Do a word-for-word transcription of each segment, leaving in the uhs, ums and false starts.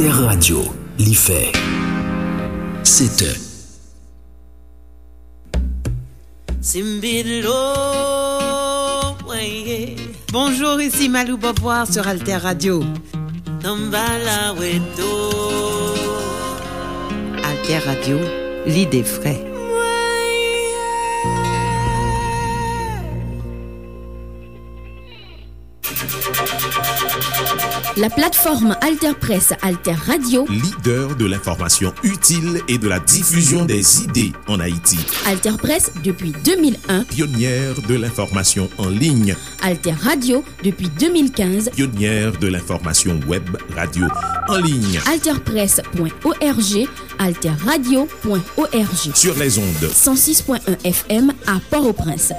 Alter Radio, li fè sèt è. Bonjour, ici Malou Beauvoir sur Alter Radio. Alter Radio, l'idée vraie. La plateforme Alter Presse, Alter Radio. Leader de l'information utile et de la diffusion des idées en Haïti. Alter Presse depuis deux mille un. Pionnière de l'information en ligne. Alter Radio depuis deux mille quinze. Pionnière de l'information web radio en ligne. Alter Presse point O R G, Alter Radio point O R G. Sur les ondes. Cent six point un F M à Port-au-Prince.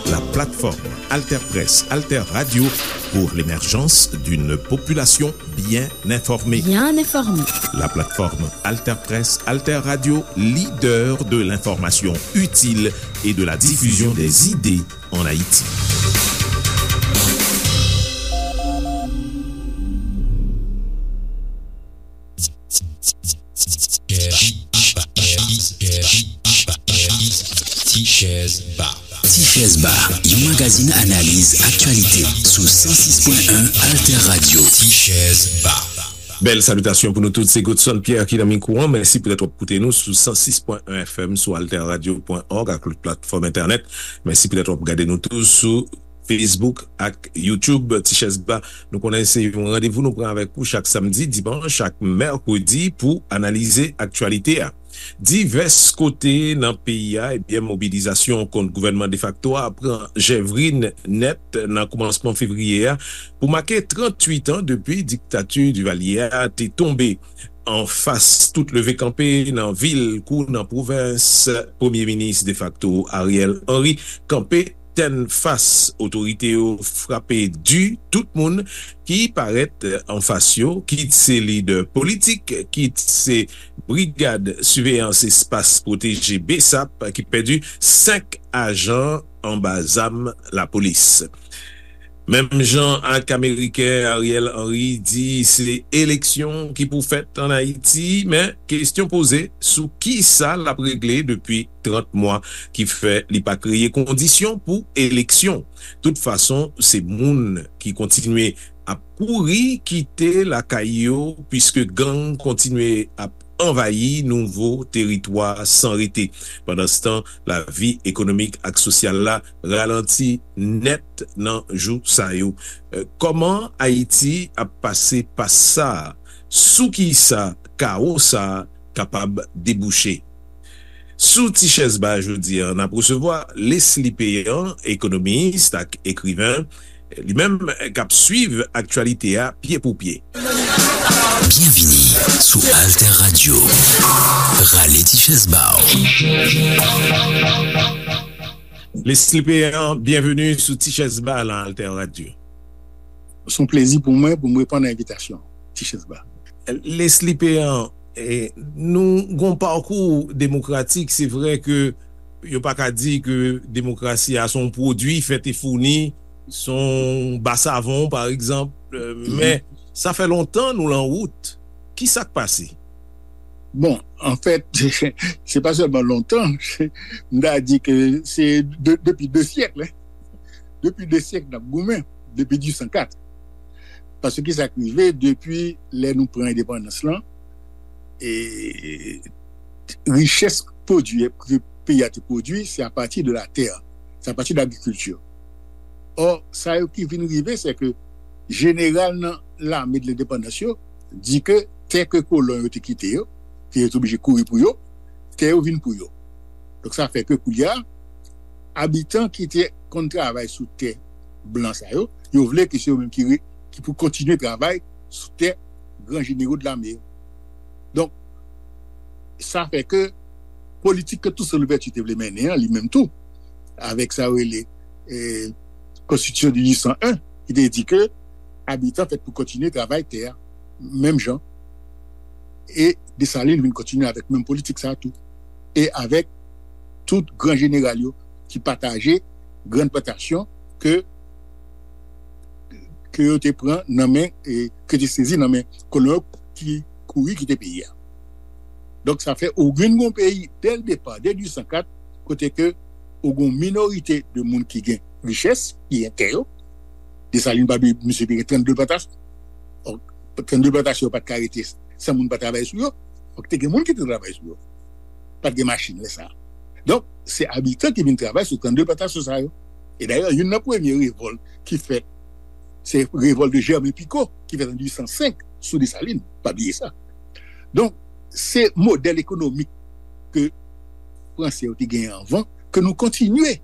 La plateforme Alter Presse, Alter Radio pour l'émergence d'une population bien informée. Bien informée. La plateforme Alter Presse, Alter Radio, leader de l'information utile et de la diffusion des idées en Haïti. Tichèz Ba. Tichèz Ba, yon magazin analiz aktyalite sou san sis pwen en Alter Radio. Tichèz Ba. Bèl salitasyon pou nou tout, se Godson Pierre ki nan mikwo an. Mèsi poutèt w ap koute nou sou san sis pwen en F M, sou alter radio pwen org ak lòt platfòm entènèt. Mèsi poutèt w ap gade nou tou sou Facebook ak YouTube. Tichèz Ba, nou konnen se yon randevou nou pran avèk ou chak samdi, dimanch ak mèkredi pou analize aktyalite a. Divès kote nan peyi a, ebyen, mobilizasyon kont gouvènman defakto a pran jèvrin nèt nan koumansman fevriye a pou make tranntuit an depi diktati Divalye a te tonbe. Anfas tout leve kanpe nan vil kou nan pwovens, Premye Minis defakto Ariel Henry kanpe tennfas. Otorite yo frape di tout moun ki parèt anfas yo, kit se lidè politik, kit se brigad siveyans espas pwoteje, B S A P, ki pèdi senk ajan anba zam lapolis. Menm jan ak Ameriken, Ariel Henry di se eleksyon ki pou fèt ann Ayiti, men kesyon poze sou ki sa l ap regle depi trant mwa, ki fè li pa kreye kondisyon pou eleksyon. Tout fason, se moun ki kontinye ap kouri kite lakay yo, piske gang kontinye ap anvayi nouvo teritwa san rete. Pandanstan, lavi ekonomik ak sosyal la ralanti nèt nan jou sa yo. Eh, kòman Ayiti ap pase pas sa a? Sou ki sa kawo sa a kapab debouche? Sou Tichèz Ba jodi a, n ap resevwa Leslie Péan, ekonomis ak ekriven, li menm k ap swiv aktyalite a pye pou pye. Byenvini sou Alter Radio. Rale Tichèz Ba w. Leslie Péan, byenveni sou Tichèz Ba nan Alter Radio. Se yon plezi pou mwen pou m reponn a envitasyon Tichèz Ba. Leslie Péan, eh, nou gon pakou demokratik, se vre ke yo pa ka di ke demokrasi a se yon pwodui fèt e founi, se yon ba savon, pa egzanp, eh, men sa fè lontan nou lan wout. Ki sa k pase? Bon, anfèt, se pa sèlman lontan, m ta di ke se de, depi de syèk, hein. Depi de syèk n ap goumen, depi dizuit san kat. Paske ki sa k rive depi lè nou pran endepandans lan, e richès pwodui ke peyi a te pwodui, se apati de latè, se apati de lagrikilti. Ò, sa yo ki vin rive, se ke jeneral nan lame de lendepandans yo di ke tè ke kolon yo te kite yo, ke yo te oblije kouri pou yo, tè yo vin pou yo. Donk, sa fè ke koulye a, abitan ki te konn travay sou tè blan sa yo, yo vle ke se yo menm ki re-, ki pou kontinye travay sou tè gran jenero de lame yo. Donk, sa fè ke politik ke Toussaint Louverture te vle mennen an, li menm tou, avèk sa yo rele, eh, Konstitisyon de dizuit san en, ki te di ke abitan fèt pou kontinye travay tè a, menm jan. E Desalin vin kontinye avèk menm politik sa a tou. E avèk tout gran jeneral yo ki pataje grann plantasyon ke ke yo te pran nan men, e, ke te sezi nan men kolon yo ki kouri kite peyi a. Donk, sa fè ou gen yon peyi, dè l depa, dè dizuit san kat, kote ke ou gen yon minorite de moun ki gen richès, ki gen tè yo. Desalin pa bliye, misye te gen trannde plantasyon. Donk, trannde plantasyon yo pa t ka rete san moun pa travay sou yo. Fòk te gen moun ki te travay sou yo. Pa t gen machin lè sa a. Donk, se abitan ki vin travay sou trannde plantasyon sa yo. E dayè, youn nan premye revòlt ki fèt, se revòlt de Jèmen Piko, ki fèt an dizuit san senk sou Desalin. Pa bliye sa. Donk, se modèl ekonomik ke Franse yo te genyen anvan, ke nou kontinye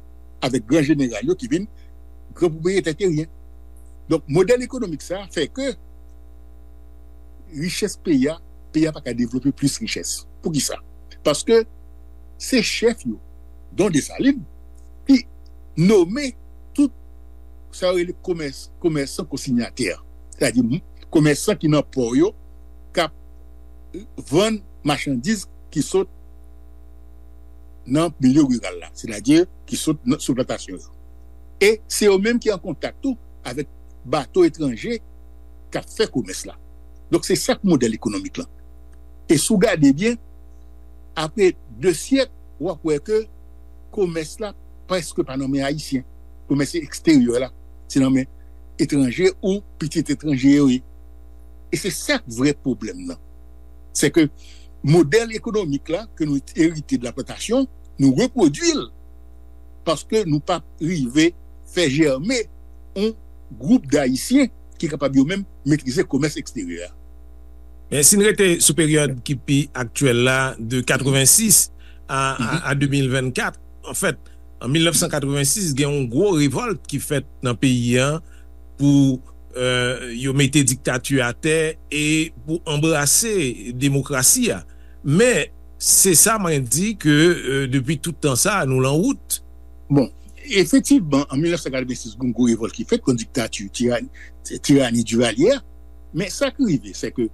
avèk gran jeneral yo ki vin gran pwopriyetè teryen. Donk, modèl ekonomik sa a fè ke richès peyi a, peyi a pa ka devlope plis richès. Poukisa? Paske se chèf yo, Don Desalin, ki nome tout sa yo rele komès, komèsan konsinyatè. Sètadi, m-, komèsan ki nan pò yo, k ap vann machandiz ki sot nan milye riral la, sètadi ki sot nan, sou plantasyon yo. E se yo menm ki an kontak tou avèk bato etranje k ap fè komès la. Donk, se sa k modèl ekonomik lan. E si w gade byen, apre de syèk, w ap wè ke komès la prèske pa nan men Ayisyen. Komès eksteryè la, se nan men etranje ou pitit etranje yo ye. E se sa k vrè pwoblèm nan. Se ke modèl ekonomik la ke nou erite de la plantasyon, nou repwodui l paske nou pa rive fè jèmen yon gwoup d Ayisyen ki kapab yo menm metrize komès eksteryè a. Men si n rete sou peryòd ki pi aktyèl la, de katrevensis a, a, a de mil vennkat, anfèt, an mil nèf san katrevensis, gen yon gwo revòlt ki fèt nan peyi a pou, euh, yo mete diktati atè e pou anbrase demokrasi a. Men, se sa mwen di ke, euh, depi tout tan sa, nou lan wout. Bon, efektivman, an mil nèf san katrevensis, gen yon gwo revòlt ki fèt kont diktati, tirani, tirani Duvalier a. Men sa k rive, se ke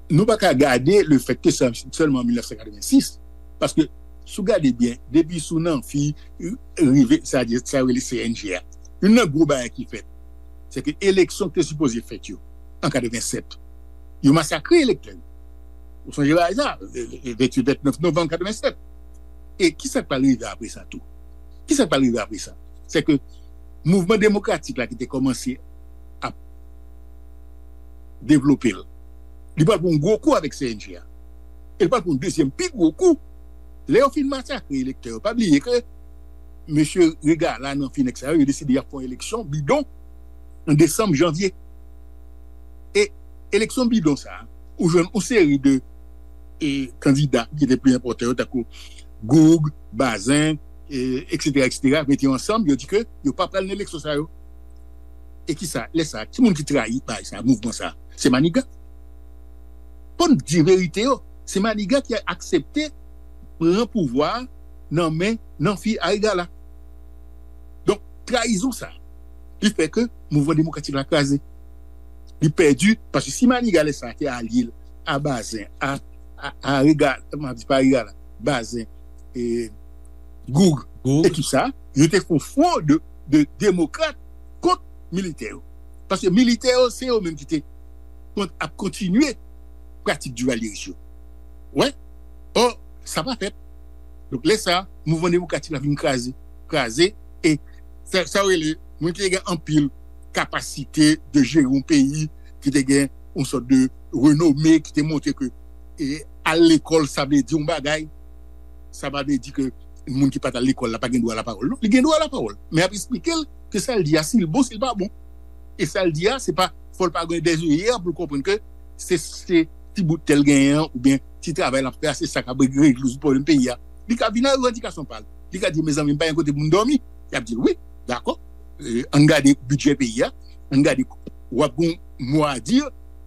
nou pa ka gade le fèt ke se sèlman an mil nèf san katrevensis, paske si w gade byen, depi sou Nanfi rive, sa di, sa yo rele C N G a, youn nan gwo bagay ki fèt, se ke eleksyon ki te sipoze fèt yo, an katrevensèt, yo masakre elektè yo. Ou sonje bagay sa, venntuit, vennèf novanm katrevensèt. E kisa k pral rive apre sa tou? Kisa k pral rive apre sa? Se ke mouvman demokratik la ki te kòmanse ap devlope l, li pral pran yon gwo kou avèk C N G a. E l pral pran yon dezyèm pi gwo kou. Lè yo fin masakre elektè yo, pa bliye ke mesye Regala, Nanfi, nèg sa yo, yo deside y ap fè yon eleksyon bidon an desanm, janvye. E eleksyon bidon sa a, ou jwenn yon seri de, e, kandida ki te pi enpòtan yo, tankou Goug, Bazin, e, etsetera, etsetera, mete yo ansanm, yo di ke yo pa pral nan eleksyon sa yo. E kisa? Lè sa a, ki moun ki trayi bagay sa a, mouvman sa a? Se Maniga. Fò n di verite yo. Se Maniga ki aksepte pran pouvwa a nan men Nanfi a Regala. Donk, trayizon sa a, li fè ke mouvman demokratik la kraze. Li pèdi, paske si Maniga lè sa a te alye l a Bazin, a, a, a Regala, m ap di pa Regala, Bazin, e, Goug, Goug, ekip sa a, yo te fè yon fwon de, de demokrat kont militè yo. Paske militè yo, se yo menm ki te kont-, ap kontinye pratik divalyeris yo. Wè, ò, sa pa fèt. Donk, lè sa a, mouvman demokratik la vin kraze, kraze, e sa, sa yo rele, moun ki te gen anpil kapasite de jere yon peyi, ki te gen yon sòt de renome, ki te montre ke, e, al lekòl, sa vle di yon bagay, sa pa vle di ke moun ki pa t al lekòl la pa gen dwa lapawòl. Non, li gen dwa lapawòl. Men y ap esplike l ke sa l di a, si l bon, si l pa bon. E sa l di a, se pa, fò l pa gen dèzoyè pou l konprann ke se, se ti bout tè l genyen an, oubyen ti travay l ap fè a, se sa k ap rezoud pwoblèm peyi a. Li ka vin ak revandikasyon pa l. Li ka di, mezanmi, m pa gen kote pou m dòmi. Y ap di l, wi, dakò. E, ann gade bidjè peyi a, ann gade, w ap gen yon mo a di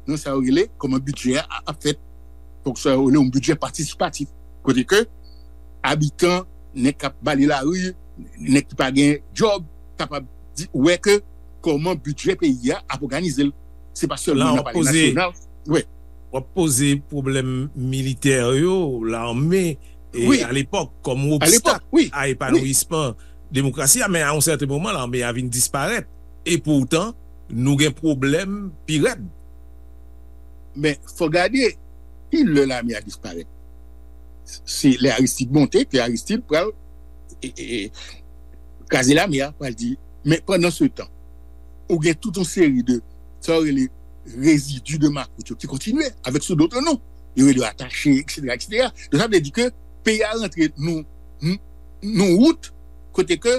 nan sa yo rele kòman bidjè a ap fèt. Donk, sa yo rele yon bidjè patisipatif. Kote ke abitan, nèg k ap bale lari, nèg ki pa gen djòb, kapab di, wè ke kòman bidjè peyi a ap òganize l. Se pa sèlman nan palè nasyonal. Wi. W ap poze pwoblèm militè yo, lame, e, alepòk, kòm yon obstak a epanouyisman demokrasi a, men a yon sèten moman, lame a vin disparèt. Epoutan, nou gen pwoblèm pi rèd. Men, fò gade ki lè lame a disparèt. Se lè Aristide monte, ke Aristide pral e, e, e, kraze lame a, pral di. Men pandan se tan, ou gen tout yon seri de sa yo rele rezidi de makout yo ki kontinye avèk sou dòt non. Yo rele yo atache, et cetera, et cetera. Donk, sa vle di ke peyi a rantre nou, nou wout kote ke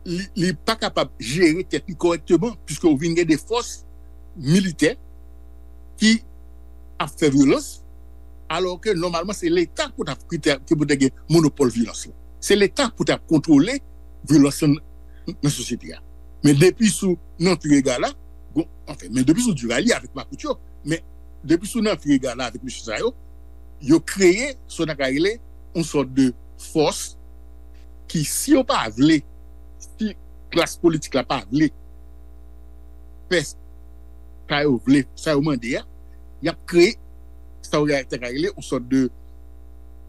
li, li pa kapab jere tèt li kòrèkteman, piske ou vin gen de fòs militè ki ap fè vyolans, alò ke nòmalman se Leta pou ta ki pou te gen monopòl vyolans lan. Se Leta pou ta kontwole vyolans lan nan sosyete a. Men depi sou Nanpire Gala, bon, anfen, men depi sou Duvalier avèk makout yo, men depi sou Nanpire Gala avèk mesye sa yo, yo kreye sa w ta ka rele yon sòt de fòs ki, si yo pa vle, si klas politik la pa vle fè sa yo vle, sa yo mande a, y ap kreye sa yo ta ka rele yon sòt de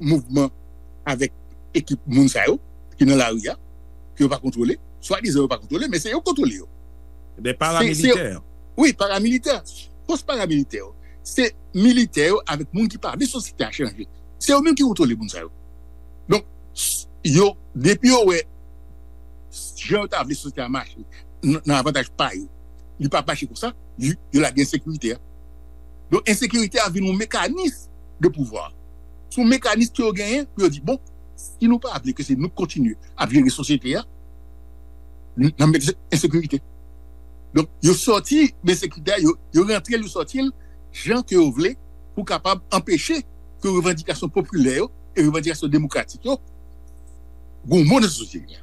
mouvman avèk ekip moun sa yo ki nan lari a, ke yo pa kontwole, swadizan yo pa kontwole, men se yo k kontwole yo. De paramilitè. Wi, paramilitè. Fòs paramilitè yo. Se militè yo avèk moun ki pa vle sosyete a chanje. Se yo menm ki kontwole moun sa yo. Donk, yo, depi yo wè jan yo ta vle sosyete a mache nan avantaj pa yo, li pa mache konsa, yo lage ensekirite a. Donk, ensekirite a vin yon mekanis de pouvwa. Se yon mekanis ke yo genyen pou yo di, bon, si nou pa vle ke se nou k kontinye ap jere sosyete a, n ap met ensekirite. Donk, yo sòti ensekirite a, yo rantre l, yo sòti l jan ke yo vle pou kapab anpeche ke revandikasyon popilè yo e revandikasyon demokratik yo goumen nan sosyete a.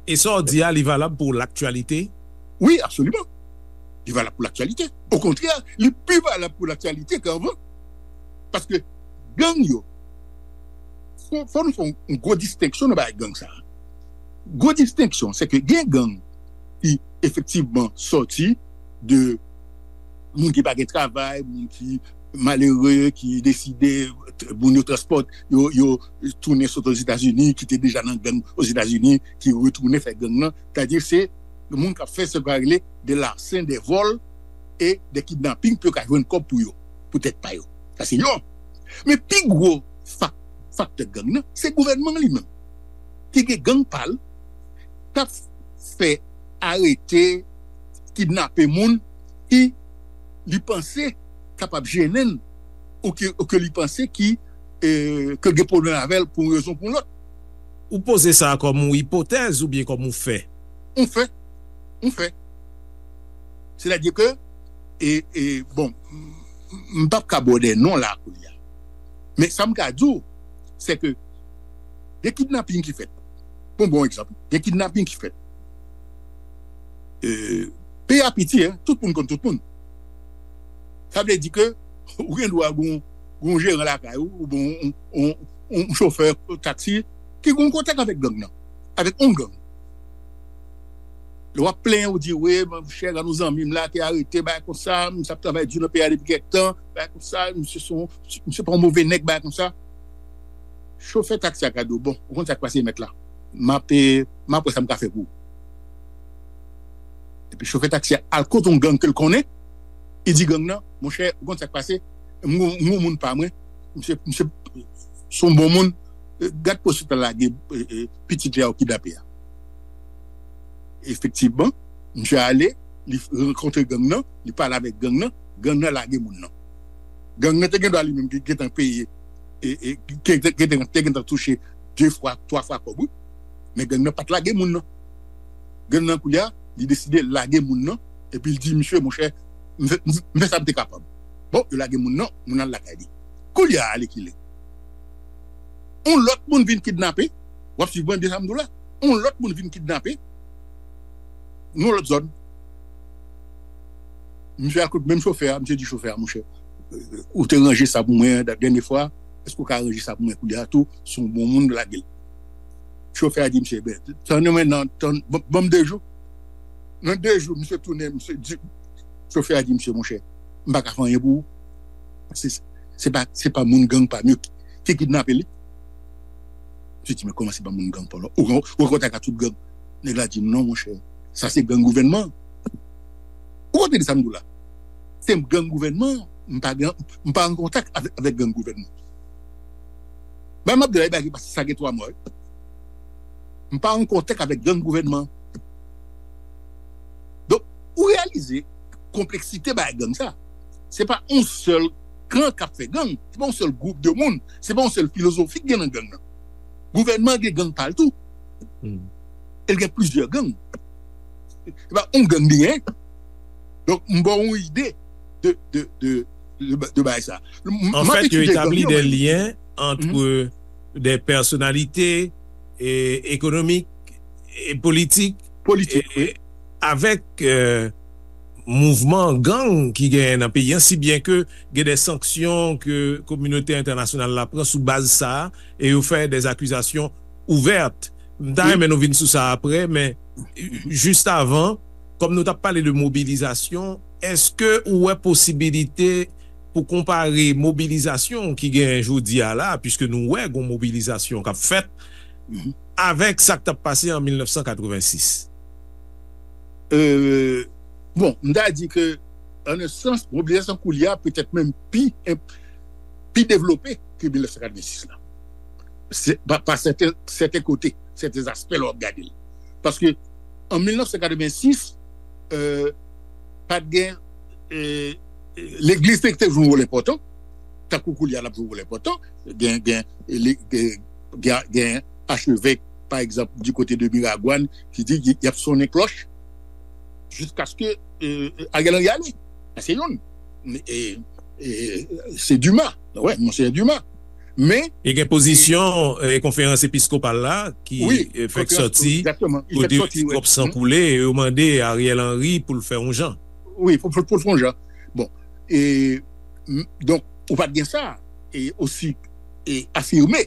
E sa w di a, li valab pou laktyalite? Wi, absoliman. Li valab pou laktyalite. Okontrè, li pi valab pou laktyalite ke anvan. Paske gang yo, fò nou fè yon gwo distenksyon nan bagay gang sa. Gwo distenksyon, se ke gen gang ki efektivman sòti de moun ki pa gen travay, moun ki malere, ki deside, moun yo transpòte, yo, yo tounen sot Ozetazini, ki te deja nan gang Ozetazini, ki retounen fè gang nan. Sètadi se moun k ap fè sa yo rele de larsen, de vòl e de kidnaping pou yo ka jwenn kòb pou yo, pou tèt pa yo. Sa se yon. Men pi gwo faktè gang nan, se gouvènman li menm. Ki gen gang pa l, k ap fè arete, kidnape moun ki li panse kapab jennen ou ke, ou ke li panse ki, ke gen pwoblèm avè l pou yon rezon pou yon lòt. Ou poze sa kòm yon ipotèz oubyen kòm yon fè? Yon fè. Yon fè. Sètadi ke, e, e, bon, m p ap ka ba w de non la kounye a. Men sa m ka di w, se ke gen kidnaping ki fèt. Bon, bon egzanp, gen kidnaping ki fèt. Peyi a piti, en, tout moun konn tout moun. Sa vle di ke ou gen dwa gen yon jeran lakay ou, oubyen yon chofè taksi ki gen yon kontak avèk gang nan, avèk yon gang. Lè w ap plenyen, ou di, wi, monchè, gen yon zanmi m la te arete, bagay konsa, misye ap travay di nan peyi a depi kèk tan, bagay konsa, misye se yon, misye pa yon move nèg, bagay konsa. Chofè taksi a ka di w, bon, ou konn sa k pase, mèt la. M ap, m ap wè sa m ka fè pou ou. Epi chofè taksi a al kote yon gang ke l konnen, li di gang nan, monchè, ou konn sa k pase, m gon, m gon moun pa mwen, misye, misye se yon bon moun, gad poste l lage pitit li a yo kidnape a. Efektivman, misye ale, li rankontre gang nan, li pale avèk gang nan, gang nan lage moun nan. Gang nan te gen dwa li menm gentan peye, e, e, te gentan touche de fwa, twa fwa kòb, wi. Men gang nan pa t lage moun nan. Gang nan kounye a, li deside lage moun nan, epi l di, misye, monchè, m fè, m fè sa m te kapab. Bon, yo lage moun nan, moun nan al lakay li. Kounye a, alekile. Yon lòt moun vin kidnape, w ap swiv mwen de sa m di w la. Yon lòt moun vin kidnape, nan yon lòt zòn. Misye al kot menm chofè a, misye di chofè a, monchè, ou te ranje sa pou mwen dènye fwa, èske w ka ranje sa pou mwen kounye a tou, se yon bon moun, lage l. Chofè a di misye, ben, tann mwen nan, tann, ban m de jou. Nan de jou, misye tounen, misye di, chofè a di misye, monchè, m pa ka fè anyen pou ou. Se, se pa, se pa moun gang pa m yo ki, ki kidnape li. Misye di, men kòman se pa moun gang pa w la? Ou, ou an kontak ak tout gang? Nèg la di, non, monchè, sa se gang gouvènman an. Ou konprann sa m di w la? Se gang gouvènman, m pa gen, m pa an kontak avèk, avèk gang gouvènman. Bay m ap di la, e bagay ki pase sa gen twa mwa, wi. M pa an kontak avèk gang gouvènman. Donk, ou reyalize konpleksite bagay gang sa. Se pa yon sèl kan k ap fè gang, se pa yon sèl gwoup de moun, se pa yon sèl filozofi k gen nan gang nan. Gouvènman gen gang pa l tou. E l gen plizyè gang. Se pa yon gang li gen. Donk, m ba w yon ide de, de, de, de, de bagay sa. M, m ap etidye gang yo, mwen. En fait, yo établi des liens entre des personnalités économiques et politiques, politik, wi, avèk, euh, mouvman gang ki genyen nan peyi an, si byen ke gen de sanksyon ke kominote entènasyonal la pran sou baz sa a, e yo fè de akizasyon ouvèt. M ta renmen nou vin sou sa apre, men jis avan, kòm nou t ap pale de mobilizasyon, èske ou wè posibilite pou konpare mobilizasyon ki genyen jodi a la, piske nou wè gon mobilizasyon k ap fèt, avèk sa k t ap pase an mil nèf san katrevensis? Euh, bon, m ta di ke, an un sans, mobilizasyon koulye a petèt menm pi, pi devlope ke mil nèf san katrevensis la. Se, pa, pa sèten, sèten kote, sèten aspè lè w ap gade l. Paske, an mil nèf san katrevensis, euh, pa t gen, euh, legliz te, te jwe yon wòl enpòtan, tankou koulye a l ap jwe yon wòl enpòtan, gen, gen, le-, gen, gen, gen achevèk, pa egzanp, di kote de Miragwàn, ki di y, y ap sonnen klòch jiskaske, euh, Ariel Henry ale. Sa se youn. E, e, se Dumas. Wè, Monseyè Dumas. Men, e gen pozisyon, e, konferans episkopal la ki, wi, e, fèk konferans, sòti, egzakteman, li fèk kote sòti, wè, twòp san koule, e yo mande Ariel Henry pou l fè yon jan. Wi, pou, pou, pou l fè yon jan. Bon, e, m, donk, ou pa t gen sa, e, osi, e, afime,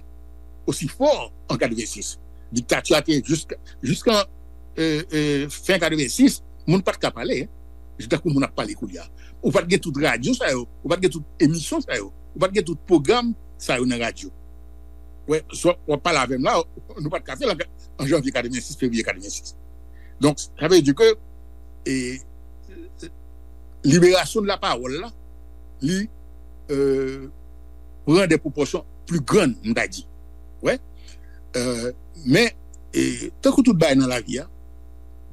osi fò an katrevensis. Diktati a te jiska, jiskan, e, e, fen katrevensis, moun pa t ka pale, en. Tankou moun ap pale koulye a. Ou pa t gen tout radyo sa yo, ou pa t gen tout emisyon sa yo, ou pa t gen tout pwogram sa yo nan radyo. Wè, swa w ap pale avè m la, nou pa t ka fè l an, an janvye katrevensis, fevriye katrevensis. Donk, sa vle di ke, e, liberasyon de la pawòl la, li, euh, pran de pwopòsyon pli grann, m ta di. Wè. Euh, men, e, tankou tout bagay nan lavi a,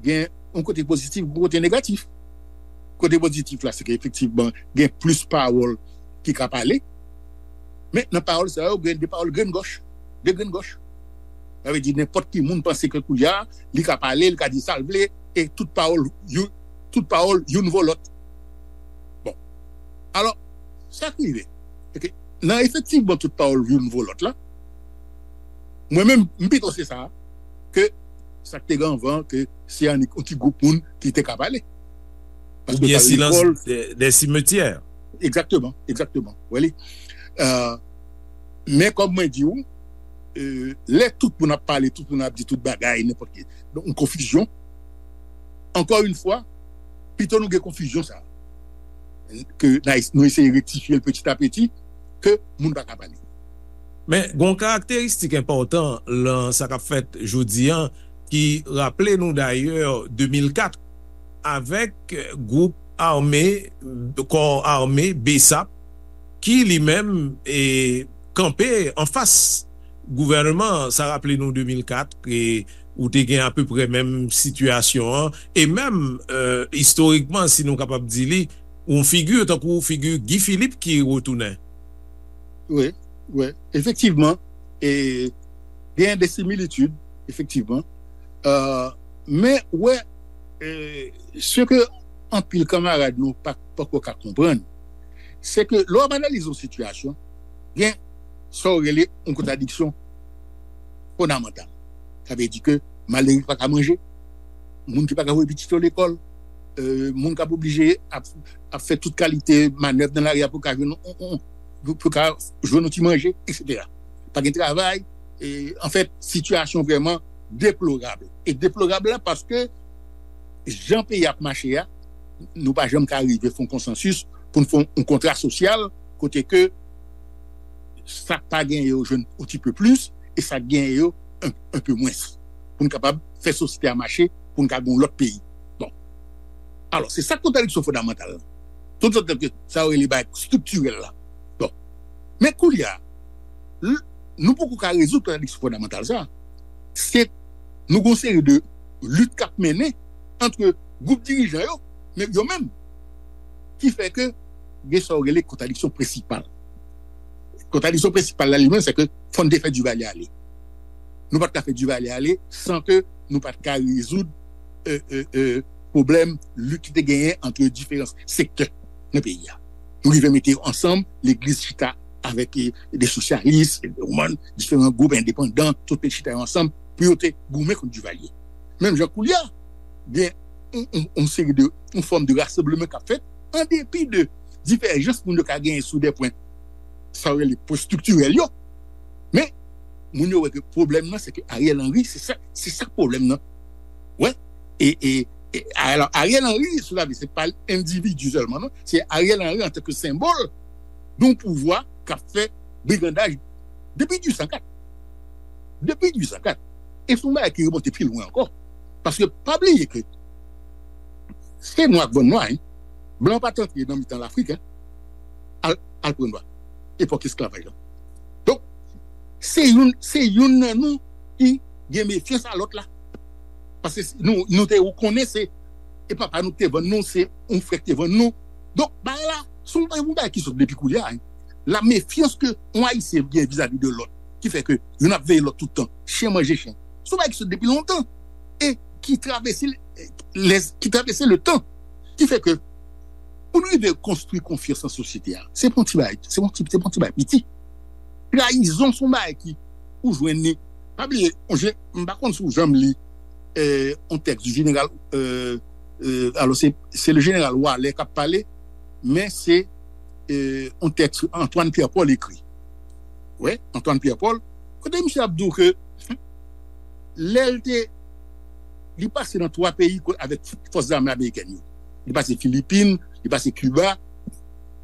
gen yon kote pozitif, yon kote negatif. Kote pozitif la, se ke efektivman, gen plis pawòl ki ka pale. Men nan pawòl sa yo, gen de pawòl grenn gòch. De grenn gòch. Sa vle di, nenpòt ki moun panse ke koulye a, li ka pale, li ka di sa l vle, e tout pawòl, you-, tout pawòl, youn vo lòt. Bon. Alò, sa k rive, se ke nan efektivman tout pawòl youn vo lòt la, mwen menm, m pito se sa, ke sa k te gen anvan, ke se annik yon ti gwoup moun ki te ka pale. Paske oubyen silans de, de simetyè. Egzakteman, egzakteman. Wè li. Euh, men kòm mwen di w, euh, lè tout moun ap pale, tout moun ap di tout bagay, nenpòt ki. Donk, yon konfizyon. Ankò yon fwa, pito nou gen konfizyon sa a. Ke n a es-, nou eseye rektifye l petit à petit, ke moun pa ka pale. Men, gen yon karakteristik enpòtan lan sa k ap fèt jodi a, ki raple nou dayè de mil kat, avèk gwoup ame, kò ame BSAP, ki li menm, e, kanpe anfas gouvènman an. Sa raple nou de mil kat, e ou te gen apeprè menm sitiyasyon an, e menm, e, istorikman, si nou kapab di li, yon figi tankou figi Guy Philippe ki retounen. Wi, wi, efektivman, e gen de similitid, efektivman. Euh, men, wè, e, se ke anpil kanmarad nou pa, poko ka konprann, se ke lè w ap analize yon sitiyasyon, gen sa w rele yon kontradiksyon fondamantal. Sa vle di ke malere ki pa ka manje, moun ki pa ka voye pitit yo lekòl, euh, moun k ap oblije ap, ap fè tout kalite manèv nan lari a pou ka jwenn, pou, pou ka jwenn yon ti manje, etsetera. Pa gen travay, e, anfèt, sitiyasyon vrèman deplorab. E deplorab la paske jan peyi ap mache a, nou pa janm ka rive fè yon konsansis pou n fè yon, yon kontra sosyal kote ke sa k pa genyen yo jwenn yon ti pe plis, e sa k genyen yo un, un peu moins. Pou n kapab fè sosyete a mache, pou n ka gen yon lòt peyi. Bon. Alò, se sa k kontradiksyon fondamantal la. Tout sa ke sa yo rele bagay estriktirèl la. Bon. Men koulye a, l- nou poko ka rezoud kontradiksyon fondamantal sa. Se nou gon seri de lit k ap mennen ant gwoup dirijan yo, men yo menm, ki fè ke gen sa yo rele kontradiksyon prensipal. Kontradiksyon prensipal la li menm, se ke fò n te fè Duvalier ale. Nou pa t ka fè Duvalier ale san ke nou pa t ka rezoud euh, euh, euh, pwoblèm lit ki te genyen ant diferan sektè nan peyi a. Nou rive mete yo ansanm, legliz chita avèk eh, de sosyalis, ou konprann, diferan gwoup endepandan, tout te chita yo ansanm pou yo te goumen kont Duvalier. Menm jan koulye a, gen yon, yon, yon seri de, yon fòm de rasanbleman k ap fèt, an depi de divèjans moun yo ka genyen sou de pwen, sa yo rele pwen estriktirèl yo. Men, moun yo wè ke pwoblèm nan, se ke Ariel Henry, se sa, se sa k pwoblèm nan. Wè, e, e, e alò, Ariel Henry, sou la vi, se pa endividi sèlman, non. Se Ariel Henry antanke senbòl de yon pouvwa k ap fè brigandaj depi dizuit san kat. Depi dizuit san kat. E se yon bagay ki remonte pi lwen ankò. Paske pa bliye ke se nwa k vann nwa, hein. Blan pa t antre nan mitan Lafrik, hein. Al, al pran nwa. Epòk esklavaj la. Donk, se youn, se youn nan nou ki gen mefyans a lòt la. Paske nou, nou te konnen se, e papa nou ki te vann nou, se yon frè ki te vann nou. Donk, bagay la, se yon, yon bagay ki sot depi koulye a, hein. La mefyans ke yon Ayisyen gen vizavi de lòt, ki fè ke youn ap veye lòt tout tan, chen manje chen. Se yon bagay ki sot depi lontan. E ki travèse, lè, ki travèse le tan. Ki fè ke, pou nou rive konstwi konfyans nan sosyete a, se pa yon ti bagay, se pa yon ti, se pa yon ti bagay piti. Trayizon se yon bagay ki, ou jwenn li. Pa bliye, on je, m pa konn si w janm li euh, yon tèks du général, euh, euh, alò se, se le général Waller k ap pale, men se euh, yon tèks Antoine Pierre Paul ekri. Wi, Antoine Pierre Paul, kote misye ap di w ke lè l te, li pase nan twa peyi ko- avèk fòs zame amerikèn yo. Li pase Filipin, li pase Kiba.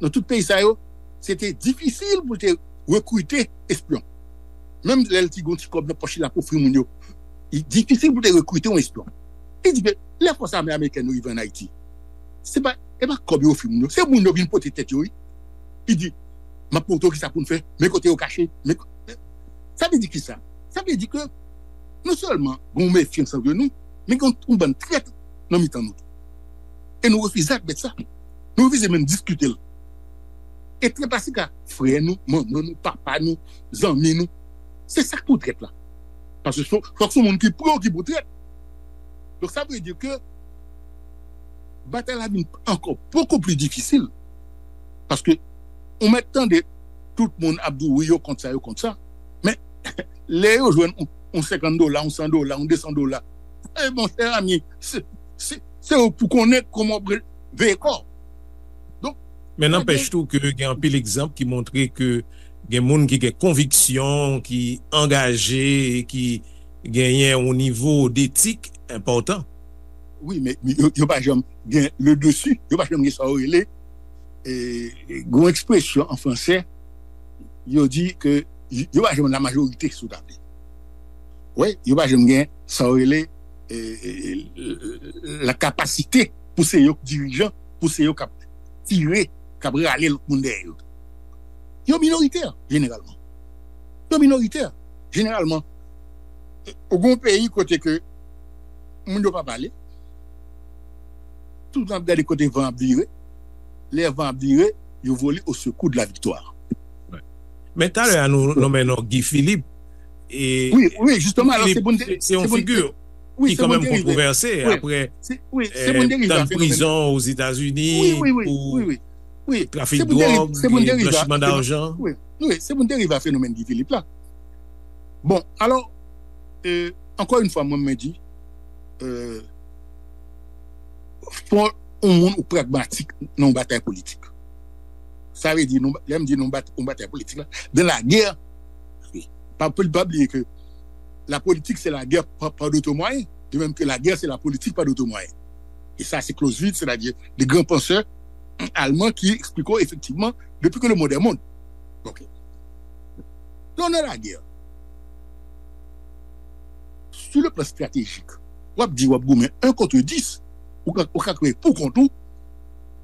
Nan tout peyi sa yo, se te difisil pou l te rekrite espyon. Menm lè l ti gon ti kòb nan pòch li, l ap ofri moun yo, li difisil pou te rekrite yon espyon. Li di ke lè fòs ame amerikèn yo rive ann Ayiti, se pa, e pa kòb yo ofri moun yo, se moun yo vin pote tèt yo, wi. Li di, m ap montre w kisa pou n fè, men kote yo kache, men ko- sa vle di kisa? Sa vle di ke non sèlman gen yon mefyans ant nou, men gen yon bann trèt nan mitan nou tou. E nou refize admèt sa. Nou refize menm diskite l. E trèt la se ka frè nou, manman nou, papa nou, zanmi nou. Se sa k pou trèt la. Paske fòk se yon moun ki pre w ki pou trèt. Donk sa vle di ke batay la vin ankò bokou pli difisil. Paske ou mèt tande tout moun ap di w wi yo kont sa, yo kont sa. Men lè yo jwenn yon, yon senkant dola, yon san dola, yon de san dola, e monchè ami, se, se, se ou pou konnen kòman w veye kò w. Donk, Men nanpèch tou ke gen anpil egzanp ki montre ke gen moun ki gen konviksyon, ki angaje, ki genyen yon nivo detik enpòtan. Wi, men yo, yo pa janm gen le dessus, yo pa janm gen sa yo rele, e, gen yon ekspresyon an fransè, yo di ke yo pa janm la majorite sou tab. Wi, yo pa janm gen sa yo rele, e, e, e, la kapasite pou se yo k dirijan, pou se yo k ap tire, k ap rale lòt moun dèyè yo. Yo minoritè, jeneralman. Yo minoritè, jeneralman. Ou gen yon peyi kote ke moun yo pa pale, tout tan ap gade kote van ap vire, lè van ap vire, yo vole au secours de la victoire. Men talè a nou nonmen non Guy Philippe. E Wi, wi, jisteman, alò se pou n te- se yon se pou n- figi wi, ki se pou n kanmenm derive. kontrouvèse Wi, apre se- wi, se pou n derive tann a fenomèn. Prizon Ozetazini Wi, wi, wi, pou wi, wi. Wi, trafik se pou n derive- dwòg, se pou n derive a blanchiman fenomèn. Dajan. Wi, wi, se pou n derive a fenomèn Guy Philippe la. Bon, alò, euh, ankò yon fwa, mwen, mwen di, euh, fò yon moun ou pragmatik nan yon batay politik. Sa vle di, nou, lè m di nou bat, yon batay politik la, dans la guerre, pa, pa, pa bliye ke la politique c'est la guerre par, par d'autres moyens, de même que la guerre c'est la politique par d'autres moyens. E sa se Clausewitz, c'est-à-dire de grands penseurs allemands qui expliquent effectivement depuis que le monde est monde. Ok. Dans la guerre, sur le plan stratégique, w ap di w ap goumen un contre dix, ou ka, ou ka kanpe pou kont ou,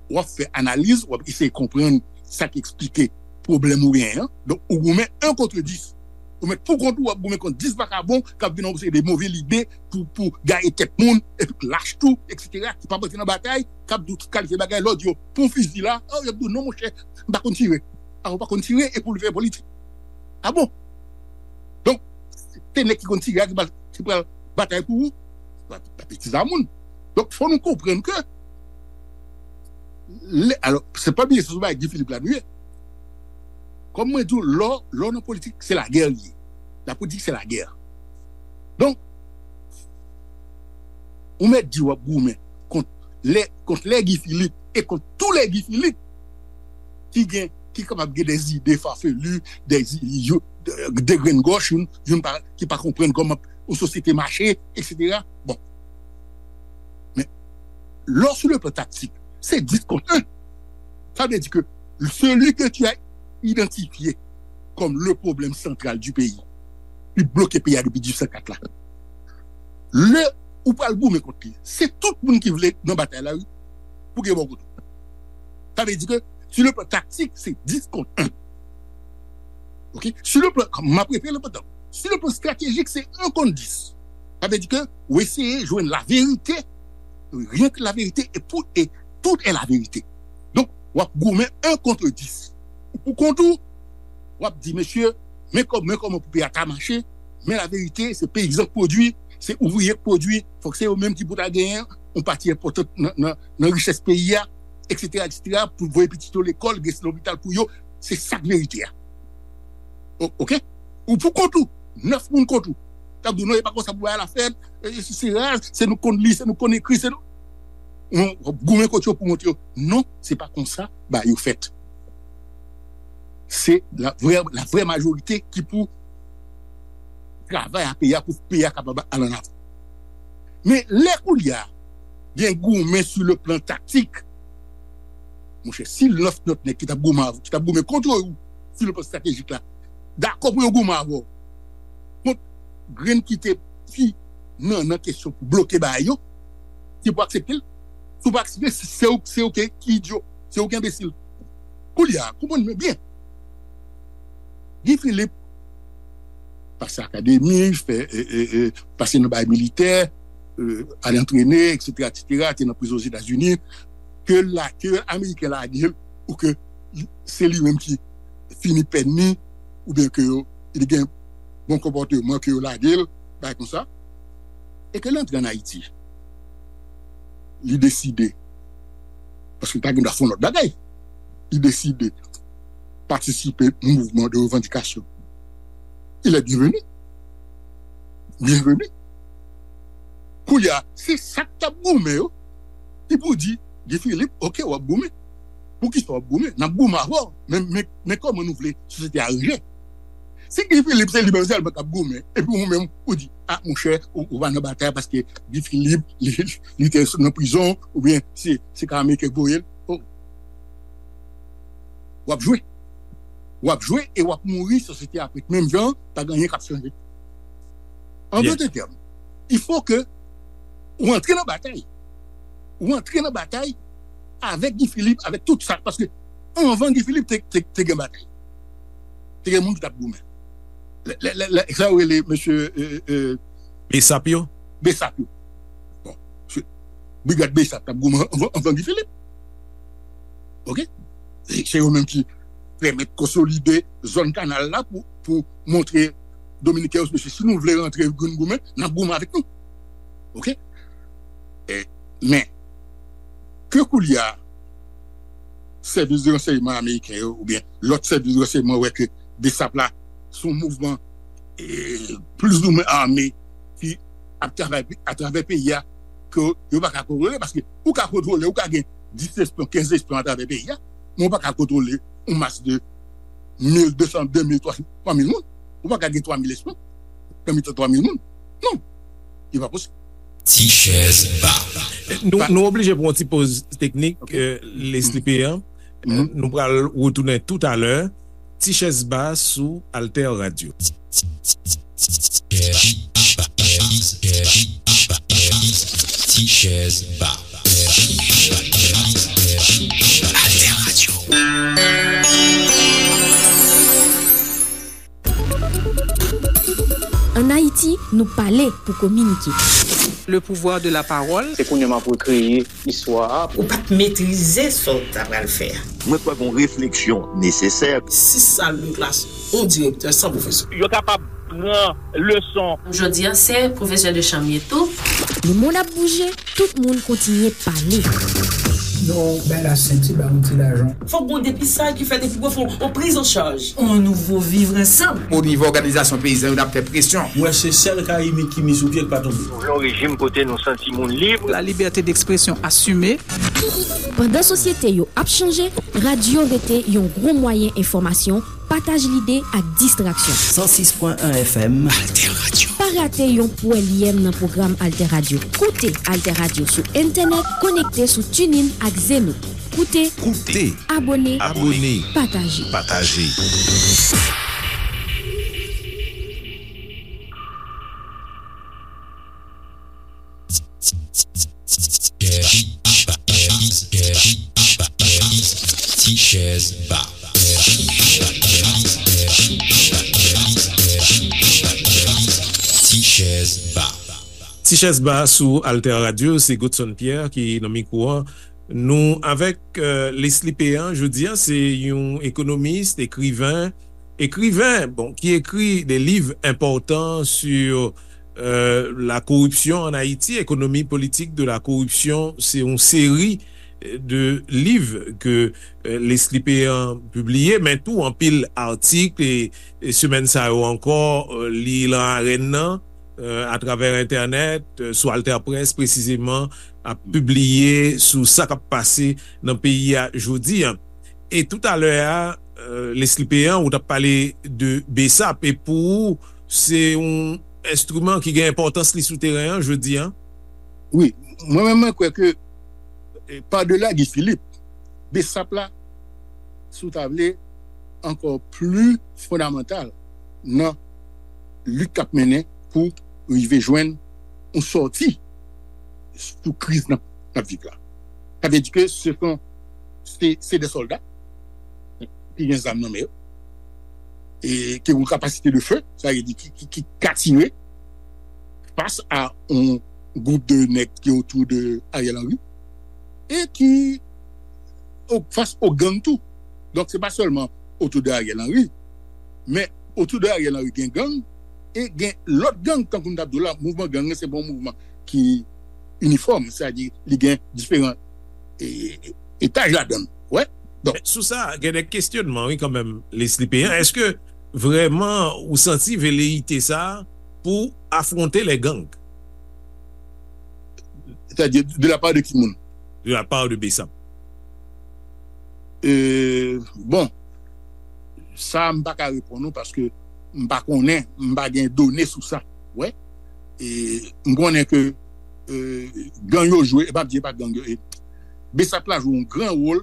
w ap fè analiz, w ap eseye konprann sa k eksplike pwoblèm ou genyen an. Donk, ou goumen en contre dix. Ou mèt pou kont ou, w ap goumen kont dis vakabon k ap vin ak yon seri de move lide pou, pou gaye tèt moun, epi k lach tou, etsetera, ki p ap rantre nan batay, k ap di w tout kalite bagay, lè w di yo, pran fizi la, oh, y ap di w, non, monchè, m pa konn tire. A, ou pa konn tire, epi w vle fè politik. A bon? Donk, se nèg ki konn tire a ki pral, ki pral batay pou ou? Pa, pa betiz a moun. Donk, fò nou konprann ke, lè, alò, se pa bliye, se sou bagay Guy Philippe la nou ye. Kòm mwen di w, lè w, lè w nan politik, se lagè li ye. La politik, se lagè. Donk, ou mèt di w ap goumen kont lè, kont lè Guy Philippe e kont tou lè Guy Philippe ki gen, ki kapab gen de zide fafelu, de, de, de grenn gòch, youn, youn pa, ki pa konprann kòman yon sosyete mache, etsetera. Bon. Men, lè w sou le plan taktik, se dis kont en. Sa vle di ke celui que tu as identifié comme le problème central du pays, ki bloke peyi a depi dizuit san kat la. Lè ou pral goumen kont li, se tout moun ki vle nan batay la, wi, pou gen bò kote. Sa vle di ke, sur le plan tactique, se dis kont en. Ok? Sur le plan, m ap repete le pandan. Sur le plan stratégique, se en kont dis. Sa vle di ke, ou eseye jwenn laverite, rien que laverite, e pou, e tout est la vérité. Donk, w ap goumen en contre dix. Ou pou kont ou, w ap di, mesye, men kò-, men kòman pou peyi a ta mache, men laverite, se peyizan k pwodui, se ouvriye k pwodui, fòk se yo menm ki pou ta genyen yon pati enpòtan nan, nan, nan richès peyi a, etsetera, etsetera, pou voye pitit yo lekòl, gen lopital pou yo, se sa k verite a. O-, ok? Ou pou kont ou, nèf moun kont ou. K ap di w, non, e pa konsa pou bagay la fèt, e, se, se raz, se nou konn li, se nou konn ekri, se nou. Ou, w ap goumen kont yo pou montre yo, non, se pa konsa bagay yo fèt. Se la vrè, la vrè majorite ki pou travay a peyi a pou peyi a kapab al ann avan. Men lè kounye a, gen goumen sou le plan taktik, monchè, si nèf lòt nèg ki t ap goumen avè w, ki t ap goumen kont ou, sou le plan estratejik la, dakò pou yo goumen avè w, kont grenn ki te pi nan, nan kesyon pou bloke bagay yo, se pou aksepte l. Si w pa aksepte, se, se ou, se ou ki, ki idyo, se ou ki enbesil. Kounye a, konprann mwen byen. Guy Philippe pase akademi, fè, e, e, e, pase nan bagay militè, e, al antrene, etsetera, etsetera, te nan prizon Ozetazini, ke la, ke Ameriken lage l, ou ke li, se li menm ki fini pèn li, oubyen ke yo, li gen bon konpòteman, ke yo lage l, bagay konsa. E ke l antre ann Ayiti. Li deside, paske l ta gen dwa fè yon lòt bagay, li deside patisipe nan mouvman de revandikasyon. Il est bienvenu. Bienvenu. Kounye a, se sa k t ap goumen yo, ki pou di, Guy Philippe, ok, w ap goumen. Poukisa w ap goumen? N ap goumen avè w. Men, men, men kòman nou vle sosyete a ranje? Si Guy Philippe se li menm sèlman k ap goumen, epi ou menm, ou di, a, monchè, ou, ou pa nan batay paske Guy Philippe, li, li te nan prizon, oubyen se, se ka Ameriken k voye l. Oh. W ap jwe. W ap jwe e w ap mouri, sosyete a ap ret menm jan, pa gen anyen k ap chanje. An dòt tèm, il faut que ou antre nan batay. Ou antre nan batay avèk Guy Philippe, avèk tout sa, paske anvan Guy Philippe te, te, te gen batay. Te gen moun ki t ap goumen. Lè, lè, lè, lè, sa yo rele mesye, e, e, Besap yo? Besap yo. Bon, se, brigad Besap t ap goumen anvan, anvan Guy Philippe. Ok? E se yo menm ki pèmèt konsolide zòn kanal la pou, pou montre Dominiken yo, mesye, si nou vle rantre goumen, goumen, n ap goumen avèk nou. Ok? E, men, ke kounye a, sèvis de ransèyman ameriken yo, oubyen lòt sèvis de ransèyman wè ke Besap la, se yon mouvman, e, plizoumwen ame ki ap travay atravè peyi a, ke yo pa ka kontwole, paske ou ka kontwole, ou ka gen dis espyon, kenz espyon atravè peyi a, men ou pa ka kontwole yon mas de mil, de san, de mil, twa, twa mil moun. Ou pa ka gen twa mil espyon nan mitan twa mil moun. Non. Li pa posib. Ti chèz ba. Nou, nou oblije pran yon ti poz teknik, e, Leslie Pierre. E, nou pral retounen toutalè. Ti chèz ba sou Alter Radio. Ti chèz ba. Alter Radio. Ann Ayiti, nou pale pou kominike. Le pouvoir de la parole. Se kounye a m ap rekreye istwa a. Ou pa t metrize sa w ta pral fè a. Mwen kwè gon refleksyon nesesè. Sis sal de klas, yon direktè, san pwofesè. Yo kapab pran leson. Jodi a, se pwofesè de chanm ye tou. Lemonn ap bouje, tout moun kontinye pale. Non, bay la senti, ba yon ti lajan. Fòk gon depistaj ki fèt epi pou fè yon priz an chaj. On nouvo vivre ansanm. O nivo òganizasyon peyizan yo, n ap fè presyon. Mwen se sèl Karibyen ki mi sou pye k pa tonbe. Nou vle yon rejim kote nou santi moun lib. La liberté d'expression assumée. Pandan sosyete yo ap chanje, radyo rete yon gwo mwayen enfòmasyon, pataj lide ak distraksyon. San sis pwen en F M. Alter Radio. Pa rate yon pwèlyèm nan pwogram Alter Radio. Koute Alter Radio sou entènèt, konekte sou TuneIn ak Zeno. Koute, Koute. Abone, Abone. Pataje. Pataje. Ti chèz ba. Ti chèz ba. Ti chèz ba sou Alter Radio, se Godson Pierre ki nan mikwo a. Nou avèk, euh, Leslie Péan, jodi a, se yon ekonomis, ekriven, ekriven, bon, ki ekri de liv enpòtan sur, euh, la corruption en Haïti, économie politique de la corruption. Se yon seri de liv ke, euh, Leslie Péan pibliye, men tou anpil atik, e, e semèn sa yo ankò, euh, li lan arèn nan, euh, atravè entènèt, euh, sou Alter Press presizeman, ap pibliye sou sa k ap pase nan peyi a jodi a. E toutalè a, euh, Leslie Péan, ou t ap pale de BESAP, e pou ou, se yon enstriman ki gen enpòtans li sou teren an jodi a? Wi, mwen menm, mwen kwè ke, eh, padela Guy Philippe, BESAP la, si w ta vle, ankò pli fondamantal nan lit k ap mennen pou rive jwenn yon sòti sou kriz n ap, n ap viv la. Sa vle di ke se son, se, se de sòlda ki gen zam nan men yo, e ki gen yon kapasite de feu, sa vle di ki, ki, ki ka tire fas a yon gwoup de nèg ki otou de Ariel Henry, e ki o, fas o gang tou. Donk, se pa sèlman otou de Ariel Henry, men otou de Ariel Henry gen gang, e gen lòt gang, tankou m t ap di w la, mouvman gang nan, se pa yon mouvman ki inifòm, sètadi li gen diferan, e, etaj ladan l. Wè? Donk, men sou sa, gen de kesyonman, wi, kanmenm, Leslie Péan. Èske vrèman ou santi veleyite sa a pou afwonte les gangs? Sètadi, de la part de ki moun? De la part de BESAP. Euh, bon, sa, m pa ka reponn ou paske m pa konnen, m pa gen done sou sa. Wè. E m konnen ke, euh, gang yo jwe, e m ap di e pa gang yo, e BESAP la jwe yon gran wòl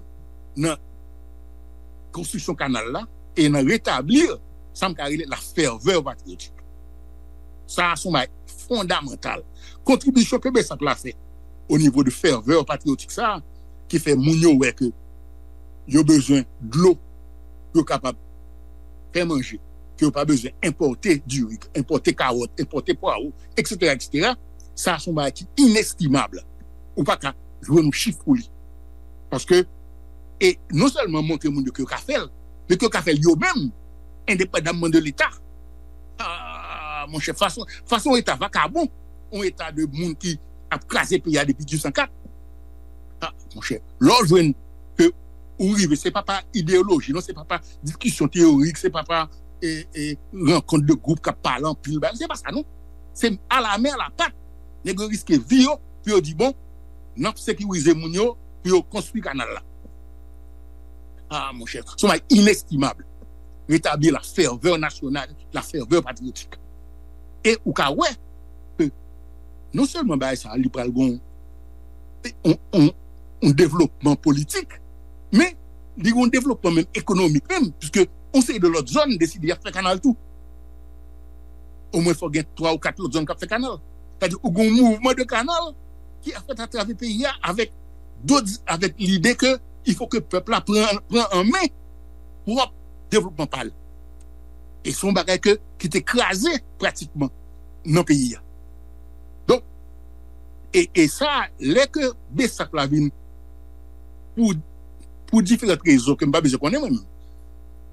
nan konstriksyon kanal la e nan retabli sa m ka rele la ferveur patriotique. Sa a se yon bagay fondamantal. Kontribisyon ke BESAP la fè o nivo de ferveur patriotique sa a, ki fè moun yo wè ke yo bezwen dlo pou yo kapab fè manje, ke yo pa bezwen enpòte diri, enpòte kawòt, enpòte pwawo, et cetera, et cetera. Sa a se yon bagay ki inestimab. Ou pa ka jwenn yon chif pou li. Paske, e non sèlman montre moun yo ke yo ka fè l, men ke yo ka fè l yo menm, endepandamman de Leta. Ah, monchè, fason, fason yon Eta vakabon, yon Eta de moun ki ap kraze peyi a depi dizuit san kat. Ah, monchè, lè w jwenn ke ou rive, se pa pa ideyoloji, non, se pa pa diskisyon teyorik, se pa pa, e, e, rankont de gwoup k ap pale anpil, bagay, se pa sa, non. Se alamen alapat, nèg yo riske vi yo pou yo di, bon, n ap sekirize moun yo, pou yo konstwi kanal la. Ah, monchè, se yon bagay inestimab. Retabli la ferveur nationale, la ferveur patriotique. E ou ka wè ke non sèlman bagay sa a, li pral gon yon, yon, yon devlopman politik, men li gon devlopman menm ekonomik menm, piske yon seri de lòt zòn deside y ap fè kanal tou. Omwen fò gen twa ou kat lòt zòn k ap fè kanal. Sètadi, ou gon mouvman de kanal ki ap fèt atravè peyi a avèk dot avèk lide ke il faut que pèp la pran, pran an men pwòp devlopman pa l. E se yon bagay ke, ki te kraze pratikman nan peyi a. Donk, e, e sa, lè ke Besap la vin pou, pou diferan rezon ke m pa bezwen konnen mwen menm.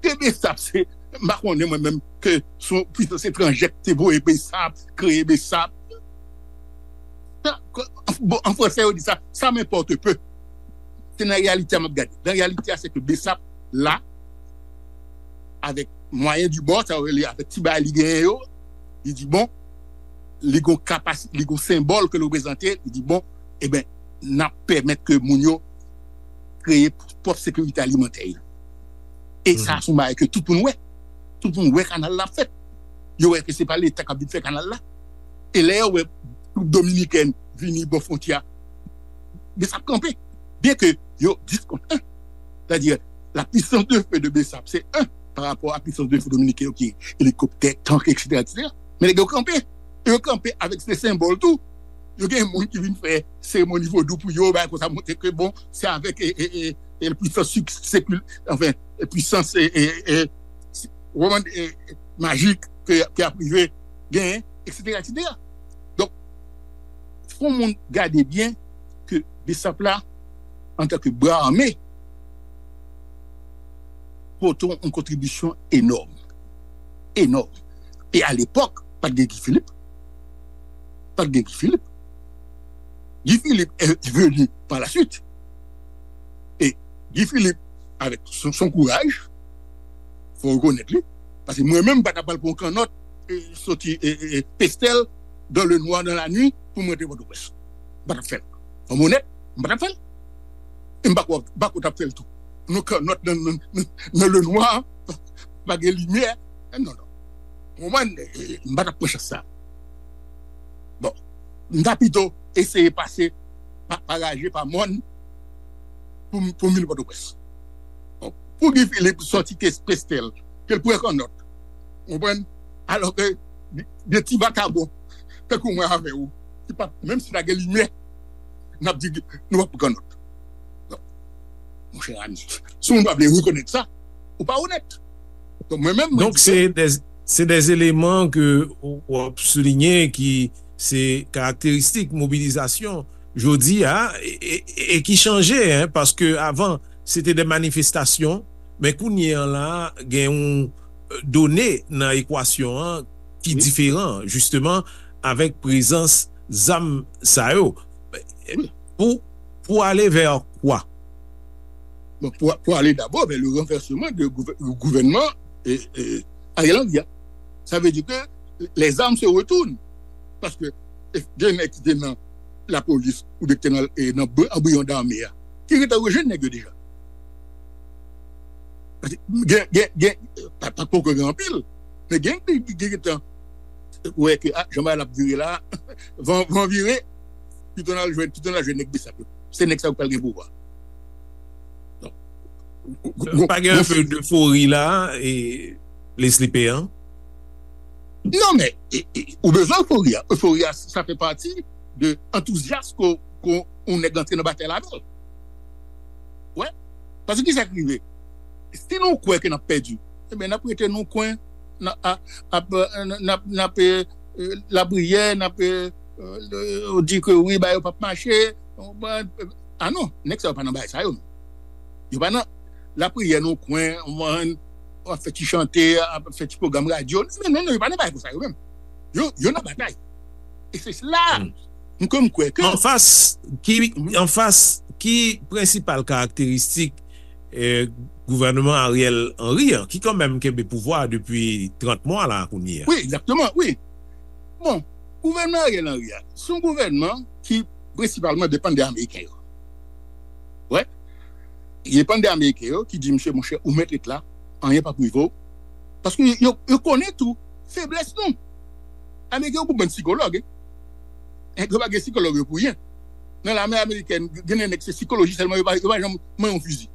Ke Besap se, m pa konnen mwen menm ke se yon pwisans etranjè ki te voye Besap, kreye Besap. Sa, ke, bon, an fransè, yo di sa, ça m'importe peu. Se nan reyalite a m ap gade. Nan reyalite a, se ke Besap la, avèk mwayen di bò, sa yo rele avèk ti bagay li genyen yo, li di, bon, li gon kapasite, li gon senbòl ke l reprezante, li di, bon, e ben, n ap pèmèt ke moun yo kreye pwòp sekirite alimantè yo. E sa, se yon bagay ke tout moun wè. Tout moun wè kanal la fèt. Yo wè ke se pa Leta k ap vin fè kanal la. E lè yo wè twoup dominikèn vini bò fwontyè a, Besap kanpe. Byen ke yo diskontan. Sètadi, la puissance de feu de Besap, se un, pa rapò a puissance de feu dominiken yo ki gen elikoptè, tank, et cetera, et cetera. Men nèg yo kanpe. E yo kanpe avèk se senbòl tou. Yo gen moun ki vin fè seremoni vodou pou yo, bagay konsa, montre ke, bon, se avèk, e, e, e, e pwisans sik-, sekil-, anfen, e pwisans, e, e, e, si-, w konprann, e, e, majik ke, ke y ap rive genyen, et cetera, et cetera. Donk, fò moun gade byen ke Besap la, antanke bra ame, pote yon kontribisyon enòm. Enòm. E alepòk, pa t gen Guy Philippe. Pa t gen Guy Philippe. Guy Philippe est venu par la suite. E Guy Philippe, avèk son, son kouraj, fò rekonèt li, paske mwen menm, m pa t ap pral pran yon kannòt, e, soti, e, e, e, Pestèl, dans le noir, dans la nuit, pou m rantre Pòtoprens. M pa t ap fè l. Fò m onèt, m pa t ap fè l. E m pa kwè, m pa kwè w t ap fè l tou. Nou kannòt nan, nan, nan, nan le noir, pa gen limyè. Eh, non, non. Ou konprann? Eh, eh, m pa t ap pran chans sa. Bon, m ta pito eseye pase pa, pa Raje, pa Mòn, pou m, pou m vin Pòtoprens. Bon, pou Guy Philippe sòti ke Pestèl, ke l pran kannòt. Ou konprann? Alò ke de, de ti vakabon, tankou mwen avè w, ki pa, menm si ta gen limyè, n ap di nou p ap pran kannòt. Donk, monchè ami, si w pa vle rekonèt sa, ou pa onèt. Donk, mwen menm, mwen Donk, di ke se de, se de eleman ke w, w ap soulinye ki se karakteristik mobilizasyon jodi a, e, e, e ki chanje, en, paske avan, se te de manifestasyon, men kounye an la, gen yon, e, done nan ekwasyon an ki Wi. diferan, jisteman, avèk prezans zam sa yo. Wi. Pou, pou ale vè kwa? Bon, pou, pou ale dabò vè le renvèsman de gouvè-, gouvènman, e, e, Ariel Henry a. Sa vle di ke les armes se retournent. Paske, e, gen nèg ki te nan lapolis oubyen ki te nan, e, nan bri-, anbriyon dame a, ki gentan rejwenn nèg yo deja. Paske gen, gen, gen, pa, pa poko gen anpil, men gen, gen, gen, gentan wè ke, a, jan bagay la ap vire la, van, van vire, pito n al jwenn, pito n al jwenn nèg Besap yo. Se nèg sa yo k pral gen pouvwa. Donk, gwo, gwo, Pa gen gwo anpe defori la, e Leslie Péan? Non, men, e, e, ou bezwen efori a. Efori a, sa fè pati de antouzyas ke, ke yon nèg antre nan batay la avè l. Wè. Paske kisa k rive? Si nou kwè ke n ap pèdi, ebyen, n ap rete nan yon kwen, n ap, a, ap, e, n ap, n ap, e, e, lapriyè, n ap, e, e, di ke wi, bagay yo p ap mache. Bon, a non, nèg sa yo pa nan bagay sa yo menm. Yo pa nan lapriyè nan yon kwen, w konprann, ap fè ti chante, ap fè ti pwogram radyo. Non, non, non, yo pa nan bagay konsa yo menm. Yo, yo nan batay. E se la, m kwè, m kwè ke Anfas, ki, Mhm. anfas, ki prensipal karakteristik, e, gouvènman Ariel Henry an, ki kanmenm kenbe pouvwa a depi trant mwa la kounye a? Wi, egzakteman, wi. Bon, gouvènman Ariel Henry a, se yon gouvènman ki prensipalman depann de Ameriken yo. Wè. Li depann de Ameriken yo ki di, "Mesye, monchè, ou mèt ret la, anyen p ap rive w." Paske yo, yo konnen tou feblès nou. Ameriken yo pou bann sikològ, en. Nèg yo pa gen sikològ yo pou ryen. Nan lame amerikèn, gen de nèg se sikoloji sèlman, yo pa, yo pa janm manyen yon fizi.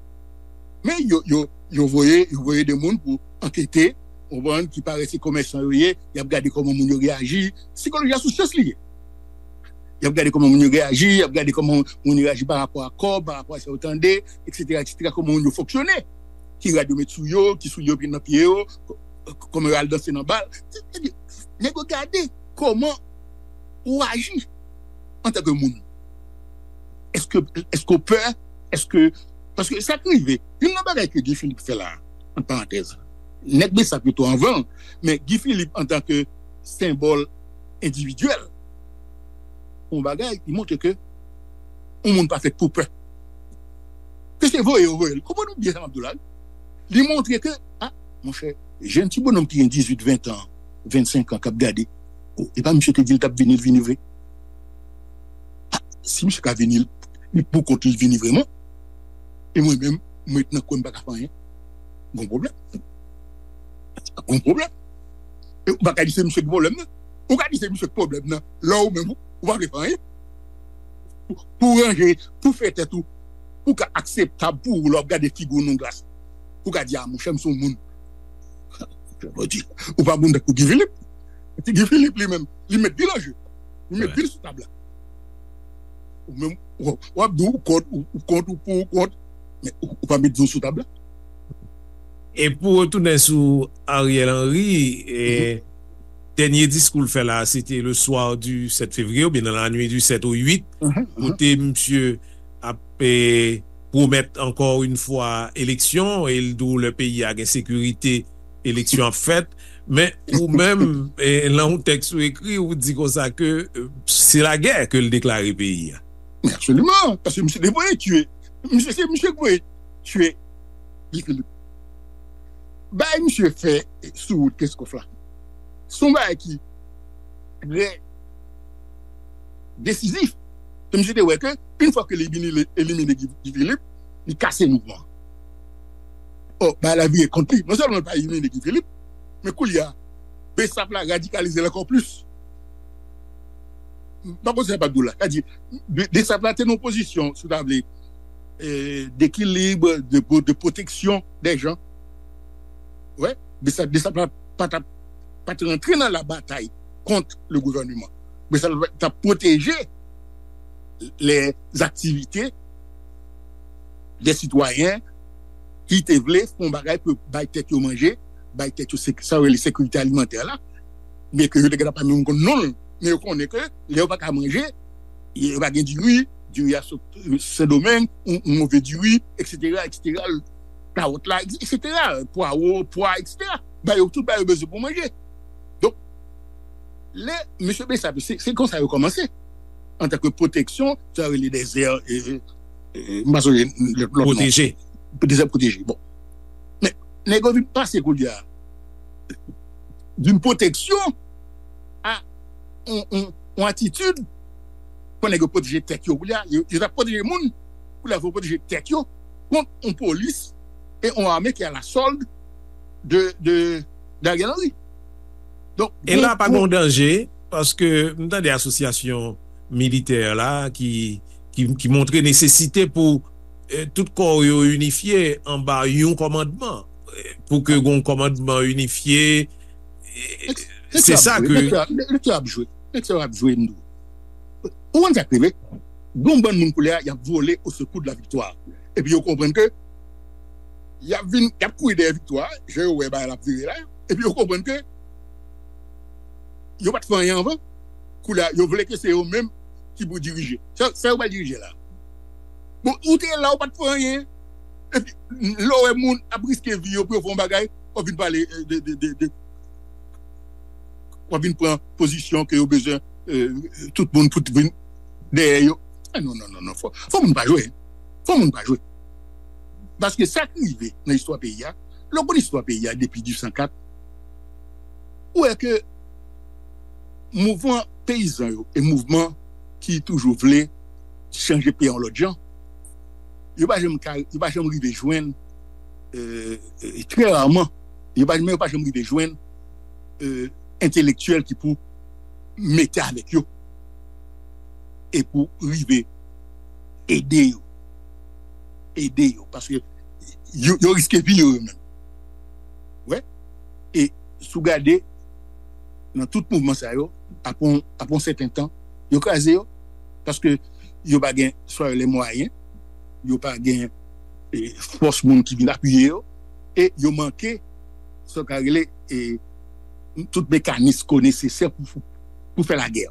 Men yo, yo, yo voye, yo voye de moun pou ankete, ou konprann, ki parèt se komèsan yo ye, y ap gade kòman moun yo reyaji. Sikoloji a sou syans li ye. Y ap gade kòman moun yo reyaji, y ap gade kòman moun yo reyaji pa rapò a kòb, pa rapò a sa yo tande, et cetera, et cetera, kòman moun yo fonksyone. Ki rad yo met sou yo, ki soulye yo met nan pye yo, kòman yo al danse nan bal. Nèg yo gade kòman ou aji antanke moun. Èske, èske w pè? Èske, paske sa k rive, youn nan bagay ke Guy Philippe fè la, ant parantèz, nèg Besap yo tou anvan l, men Guy Philippe antanke senbòl endividyèl, yon bagay, li montre ke yon moun pa fèt pou pè. Ke se voye yo voye l. Konprann ou byen sa m ap di w la, wi. Li montre ke, a, monchè, jèn ti bonòm ki gen dizuit, ven tan, vennsenk an k ap gade, o, e pa misye te di l t ap vini, l vini vre. A, si misye ka vini, li pou kont li vini vrèman, e mwen menm, mwen ret nan kwen m pa ka fè anyen, gon pwoblèm. Gon pwoblèm. E ou pa ka di se misye ki pwoblèm nan. Ou ka di se misye ki pwoblèm nan. Lè ou menm, ou, ou pa vle fè anyen. Pou, pou ranje, pou fè tèt ou, pou ka akseptab pou ou lè w ap gade figi w nan glas. Pou ka di, a, monchè, m se yon moun. Ou pa moun tankou Guy Philippe. Ti Guy Philippe li menm, li met pil an je. Li met pil sou tab la. Ou menm, w ap di w kont, ou kont, ou pou, ou kont. Men ou, ou pa met di w sou tab la. E pou retounen sou Ariel Henry, e, dènye diskou l fè la, se te le soir du sept février, oubyen nan la nuit du sept au huit, kote misye ap e, pwomèt ankò yon fwa eleksyon, e l di w lè peyi a gen sekirite, eleksyon ap fèt. Men ou menm, e, nan yon tèks ou ekri, ou di konsa ke e, se lagè ke l deklare peyi a. Men absoliman, paske misye te voye tiye. Misye se misye ki voye tiye Guy Philippe. Bagay misye fè sou wout Kenskòf la, se yon bagay ki trè desizif. Se misye te wè ke, yon fwa ke li vin elimine Guy Philippe, li kase mouvman. Ò, bagay la vire kont li. Non sèlman li pa elimine Guy Philippe, men koulye a, Besap la radikalize l ankò plis. M pa konn sa m ap di w la. Sa di, Besap la te nan yon pozisyon, si w ta vle, dekilib, de, de pwoteksyon dè jan. Wè, Besap, Besap la pa t ap, pa t rantre nan la batay kont le gouvèneman. Besap la t ap pwoteje lè aktivite dè sitwayen ki te vle fè yon bagay pou bay tèt yo manje, bay tèt yo sa yo rele sekirite alimantè la, byen ke yo te gentan pa menm konn non l, men yo konnen ke lè yo pa ka manje, yo pa gen diri, diri a sot Sendomeng, yon move diri, eksetera, eksetera, kawòt la, eksetera, pwawo, pwa, eksetera. Ba yo tout, ba yo bezwen pou manje. Donk, lè mesye Besap, se konsa yo kòmanse. Antanke pwoteksyon, sa rele dèzè, m pa sonje lòt non. Pwoteje. Dèzè pwoteje. Bon. Men, nèg yo vin pase koulye a d'une protection à yon atitid pou nèg yo pwoteje tèt yo. Koulye a, yo t ap pwoteje moun, koulye a, yo pwoteje tèt yo kont yon polis e yon ame ki a la sòld de, de, de Ariel Henry. Donk, e la pa gen yon danje, paske m tande asosyasyon militè la ki, ki, ki montre nesesite pou tout kò yo inifye anba yon kòmandman, pou ke gen yon kòmandman inifye. Se sa ke. Lè ap jwe, lè ap jwe, m di w. Ou konn sa k rive? Gen yon bann moun koulye a, y ap vole au secours de la victoire. Epi yo konprann ke y ap vin, y ap kouri dèyè viktwa, jan yo wè bagay la ap vire la. Epi yo konprann ke yo pa t fè anyen anvan. Koulye a, yo vle ke se yo menm ki pou dirije. Sa, sa yo pral dirije la. Bon, ou te la, ou pa t fè anyen. Epi, lè w wè moun ap riske vi yo pou yo fè yon bagay, w ap vin pale de, de, de, de, w ap vin pran pozisyon ke yo bezwen tout moun pou vin dèyè yo. Non, non, non, non, fò, fò moun pa jwe. Fò moun pa jwe. Paske sa k rive nan istwa peyi a, lè w konn istwa peyi a depi dizuit san kat, ou wè ke mouvman peyizan yo e mouvman ki toujou vle chanje peyi a yon lòt jan, yo pa janm ka, yo pa janm rive jwenn, trè raman, yo pa, men yo pa janm rive jwenn entelektyèl ki pou mete avèk yo e pou rive ede yo. Ede yo. Paske yo, yo riske vi yo, yo menm. Wè. E si w gade, nan tout mouvman sa yo, apre yon, apre yon sèten tan, yo kraze yo. Paske yo pa gen swa les moyens, yo pa gen e, fòs moun ki vin apiye yo, e yo manke sa yo ka rele e, tout mekanis ko nesesè pou, pou, pou fè lagè.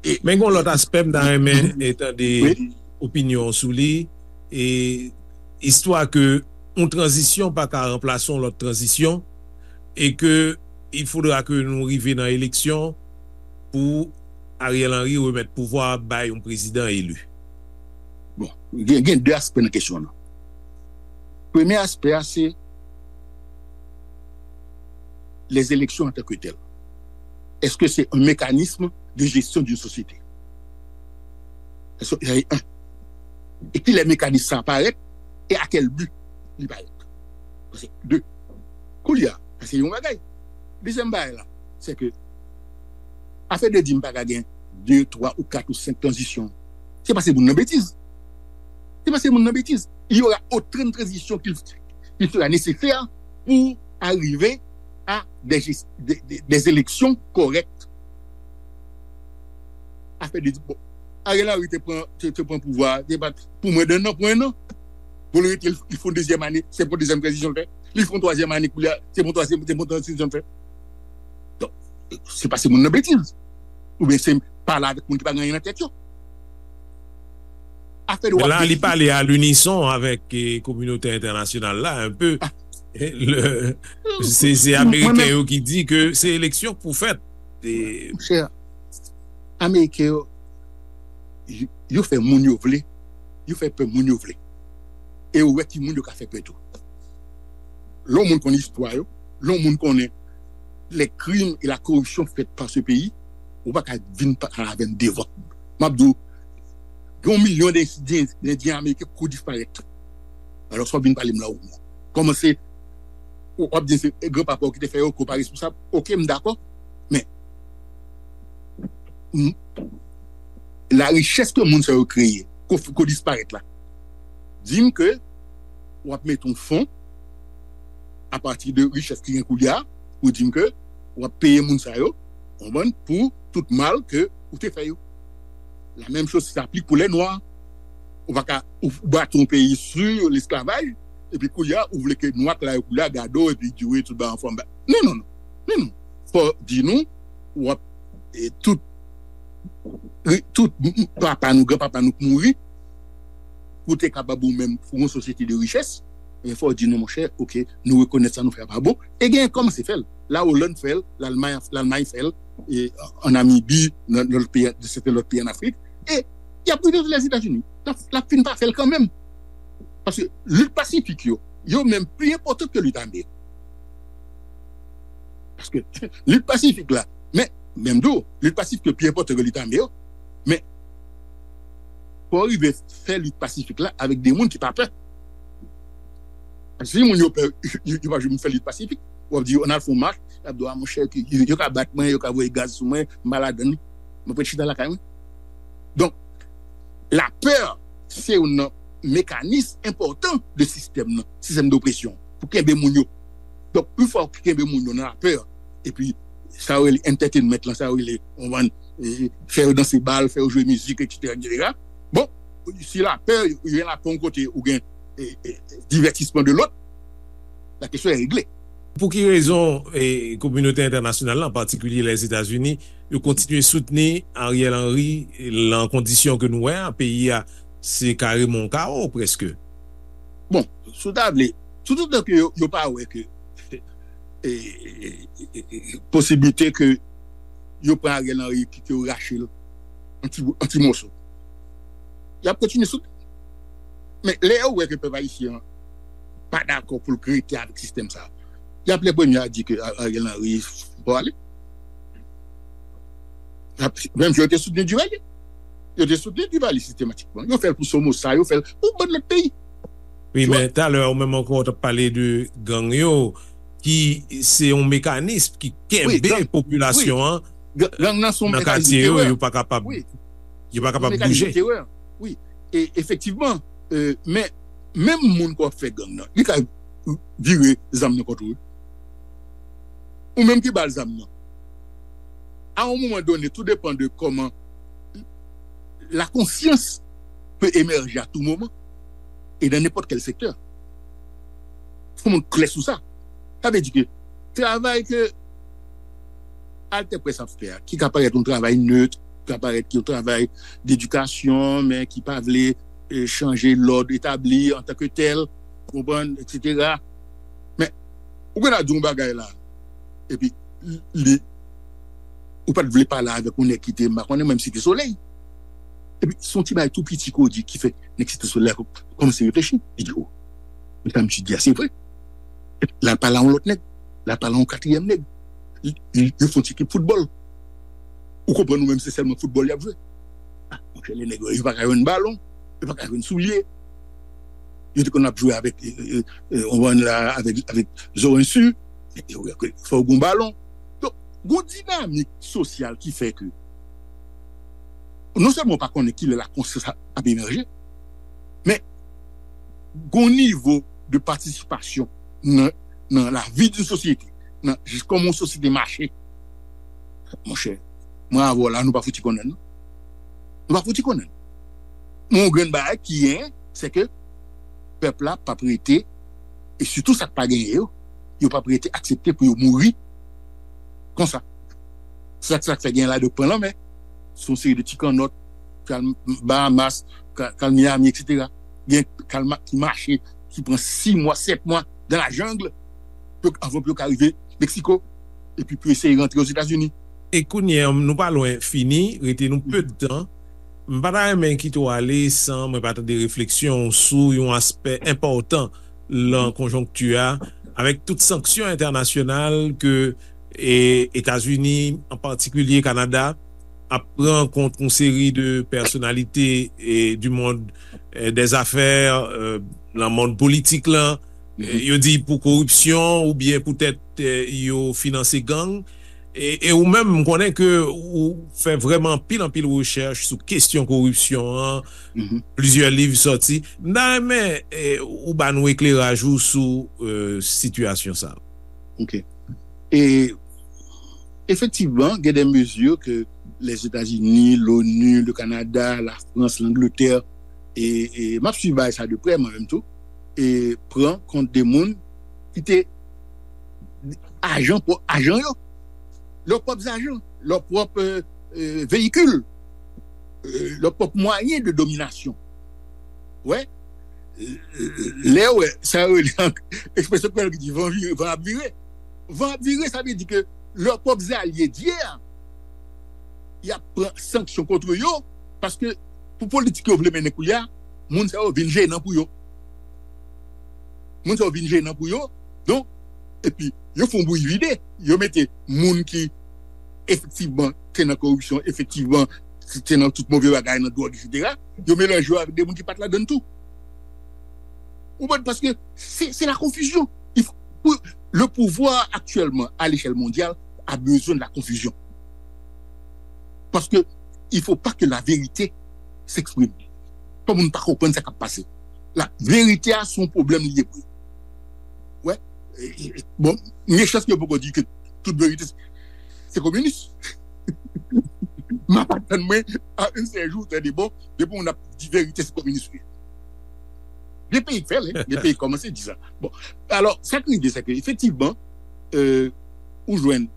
E, Men gen yon lòt aspè m ta renmen e, tande opinyon sou li, e istwa ke yon tranzisyon pa ka ranplase yon lòt tranzisyon, e ke il faudra ke nou rive nan eleksyon pou Ariel Henry remèt pouvwa bay yon prezidan eli. Bon, gen, gen de aspè nan kesyon nan. Premye aspè a se les élections en tant que telles. Est-ce que c'est un mécanisme de gestion d'une société? Est-ce que, e, e kilè mekanis sa parèt e a kèl bi li parèt? Paske de, koulye a, sa se yon bagay. Dezyèm bagay la, se ke afè de di m pa ka gen de, twa ou kat ou senk tranzisyon. Se pase moun nan betiz. Se pase moun nan betiz. Il y aura autant de transitions qu'il qu'il sera nécessaire pour arriver à des, des, des élections correctes. Afè de bon, Ariel Henry te pran, te, te pran pouvwa, te bat pou mwen de nan pwen nan. Pou li rete, li fè yon dezyèm ane, se pou dezyèm tranzisyon l fè. Li fè yon twazyèm ane koulye a, se pou twazyèm, se pou tranzisyon l fè. Donk, se pase moun nan betiz. Oubyen se pale avèk moun ki pa gen anyen nan tèt yo. Afè de wap. La, li pale a linison avèk e, kominote entènasyonal la, un peu. Ah. Le, se se Ameriken yo ki di ke se eleksyon k pou fèt. Monchè, Ameriken yo, yo fè moun yo vle, yo fè pè moun yo vle. E yo wè ki moun yo ka fè pè tou. Lè yon moun konn istwa yo, lè yon moun konnen les crimes et la corruption faits par ce pays, ou pa ka vin pale avè m devan. M ap di w, gen yon milyon de, de, de Endyen Ameriken kou disparèt. Alò, sa w vin pale m la ou kòmanse, w ap di se granpapa w ki te fè yo, ke w pa responsab. Oke, m dakò. Men, m, la richès ke moun sa yo kreye, ko, ko disparèt la, di m ke w ap mete yon fon apati de richès ki gen koulye a, pou di m ke w ap peye moun sa yo, konprann, pou tout mal ke ou te fè yo. La menm choz sa aplik pou lè nwa. Ou pa ka ou bati yon peyi sou lesklavaj, epi koulye a ou vle ke nwa k la yo koulye a gade w epi di w tout bagay anfòm. Non, non, non. Non, non. Fò di nou, w ap e, tout, tout papa nou, granpapa nou k mouri, pou te kapab ou menm pou yon sosyete de richès, men fò w di nou, monchè, oke, nou rekonèt sa nou fè a pa bon. E gen kòmanse fè l. La Olann fè l, Lalmay, Lalmay fè l, e an Namibi, nan lòt peyi, de sèten lòt peyi an Afrik. E y ap rive Lèzetazini. L ap, l ap fin pa fè l kanmenm. Paske lit pasifik yo, yo menm pli enpòtan ke lit ame yo. Paske lit pasifik la, men, menm tou, lit pasifik yo pi enpòtan ke lit ame yo. Men, fò w rive fè lit pasifik la avèk de moun ki pa pè. Paske si moun yo pè, yo, yo pa janm fè lit pasifik. W ap di yo, ann al fè yon mach, y ap di w, a monchè, yo, yo ka bat mwen, yo ka voye gaz sou mwen, m pa ladann, mwen prefere chita lakay mwen. Donk, lapè, se youn nan mekanis enpòtan de sistèm nan, sistèm dopresyon, pou kenbe moun yo. Donk, yon fwa w kenbe moun yo nan lapè, epi sa yo rele entertainment lan, sa yo rele, w konprann, e, fè yo danse bal, fè yo jwe mizik, etsetera, etsetera. Bon, si lapè, ou gen lapè yon kote, ou gen e, e, divètisman de lòt, la kesyon est réglée. Pou ki rezon e, kominote entènasyonal la, an patikilye Lèzetazini, yo kontinye soutni Ariel Henry lan kondisyon ke nou wè a, peyi a se kareman yon kawo prèske? Bon, si w ta vle, toutotan ke yo, yo pa wè ke e, e, e, e, posiblite ke yo pran Ariel Henry, ke yo rache l an ti, an ti moso, y ap kontinye soutni. Men lè yo wè ke pèp ayisyen an pa dakò pou l rete avèk sistèm sa, y ap lè premye a di ke A- Ariel Henry fò ale. Y ap, menm jan yo te soutni Duvalier. Yo te soutni Duvalier sistematikman. Yo fè l pou Somoza, yo fè l pou bann lòt peyi. Wi, men talè ou menm ankò w t ap pale de gang yo, ki se yon mekanis ki kenbe popilasyon an nan katye yo, yo pa kapab, yo pa kapab bouje. Wi, e efektivman, e, men menm moun k ap fè gang nan, li ka vire zam nan kont ou. Ou menm ki ba l zam nan. A yon moman done, tou depann de kòman La conscience peut émerger à tout moment et dans n'importe quel secteur. Fò moun klè sou sa. Sa vle di ke travay ke Altè Press ap fè a, ki ka parèt yon travay nèt, ki ka parèt yon travay dedikasyon, men ki pa vle eh, chanje lòd etabli antanke tèl, konprann, etsetera. Men, ou gen a di yon bagay la, epi li, ou pa t vle pale avèk yon nèg ki te, m pa konnen, menm Site Solèy. Epi, se yon ti bagay tou piti ke w di ki fè nèg Site Solèy la kòmanse reflechi. Li di, o, men sa misye di a, se vre. Epi, l al pale a yon lòt nèg, l al pale a yon katriyèm nèg. Li, li, yo fè yon ti ekip foutbòl. Ou konprann ou menm se sèlman foutbòl y ap jwe. Ah, monchè, le nèg yo, yo pa ka jwenn balon, yo pa ka jwenn soulye. Yo te konn ap jwe avèk, eh, eh, eh, on la, avèk, avèk Zorensu. Fò w gen balon. Donk, gon dinamik sosyal ki fè ke non sèlman w pa konnen kilè la konsyans ap emèje, men gon nivo de patisipasyon nan, nan lavi d'une sosyete, nan jis kòman yon sosyete mache. Monchè, mwen avè w la, nou pa fouti konnen, non. Nou pa fouti konnen. Men yon grenn bagay ki genyen, se ke pèp la p ap rete, e sitou sa k pa genyen yo, yo p ap rete aksepte pou yo mouri konsa. Se sa k fè gen la de pran lanmè. Se yon seri de ti kannòt k al Bahamas, k al Miami, etsetera. Gen k al ki mache, ki pran sis mwa, sèt mwa dans la jungle, anvan pou yo ka rive Meksiko, epi pou eseye rantre Ozetazini. E kounye a, nou pa lwen fini, rete nou pe de tan. M pa ta renmen kite w ale san mwen pa tande refleksyon w sou yon aspè enpòtan nan konjonkti a, avèk tout sanksyon entènasyonal ke e, Etazini, an patikilye Kanada, ap pran kont yon seri de pèsonalite e, du monde e, des affaires, e, nan mond politik lan. E, yo di pou koripsyon oubyen poutèt e, yo finanse gang. E, e ou menm, m konnen ke ou fè vrèman anpil, anpil rechèch sou kesyon koripsyon an, plizyè liv sòti. M ta renmen e, ou ba nou ekleraj ou sou e, sitiyasyon sa a. Ok. E efektivman, gen de mezi ke Lèzetazini, l'ONU, le Canada, la France, l'Angleterre, e, e m ap swiv bagay sa de prè mwen menm tou, e pran kont de moun ki te ajan, pwòp ajan yo, lè pwòp zajan, lè pwòp e, e, veyikil, e, lè pwòp mwayen de dominasyon. Wè, lè w wè, sa yo rele an ekspresyon kreyòl ki di van vire, van ap vire. Van ap vire, sa vle di ke lè pwòp zalye di a, y ap pran sanksyon kont yo, paske pou politik yo vle mennen koulye a, moun sa yo vin jenan pou yo. Moun sa yo vin jenan pou yo. Donk, epi, yo fè yon bouyi vide. Yo mete moun ki efektivman te nan koripsyon, efektivman te nan tout move bagay, nan dwòg, etsetera. Yo melanje yo avèk de moun ki pa t ladann tou. Ou konprann? Paske se, se la konfizyon. Il faut, pour, le pouvoir actuellement à l'échelle mondiale a besoin de la confusion. Parce que il faut pas que la vérité s'exprime. Fò moun pa konprann sa k ap pase. La verite a se yon pwoblèm li ye pou yo. Wè. E, e, bon, gen chans ke yo poko di ke tout verite se, se kominis. M ap atann mwen a un sèl jou, tande bon, depi moun ap di verite se kominis ou ye. Gen peyi k fè l, gen peyi k kòmanse di sa. Bon, alò, sa k rive, se ke efektivman, e, ou jwenn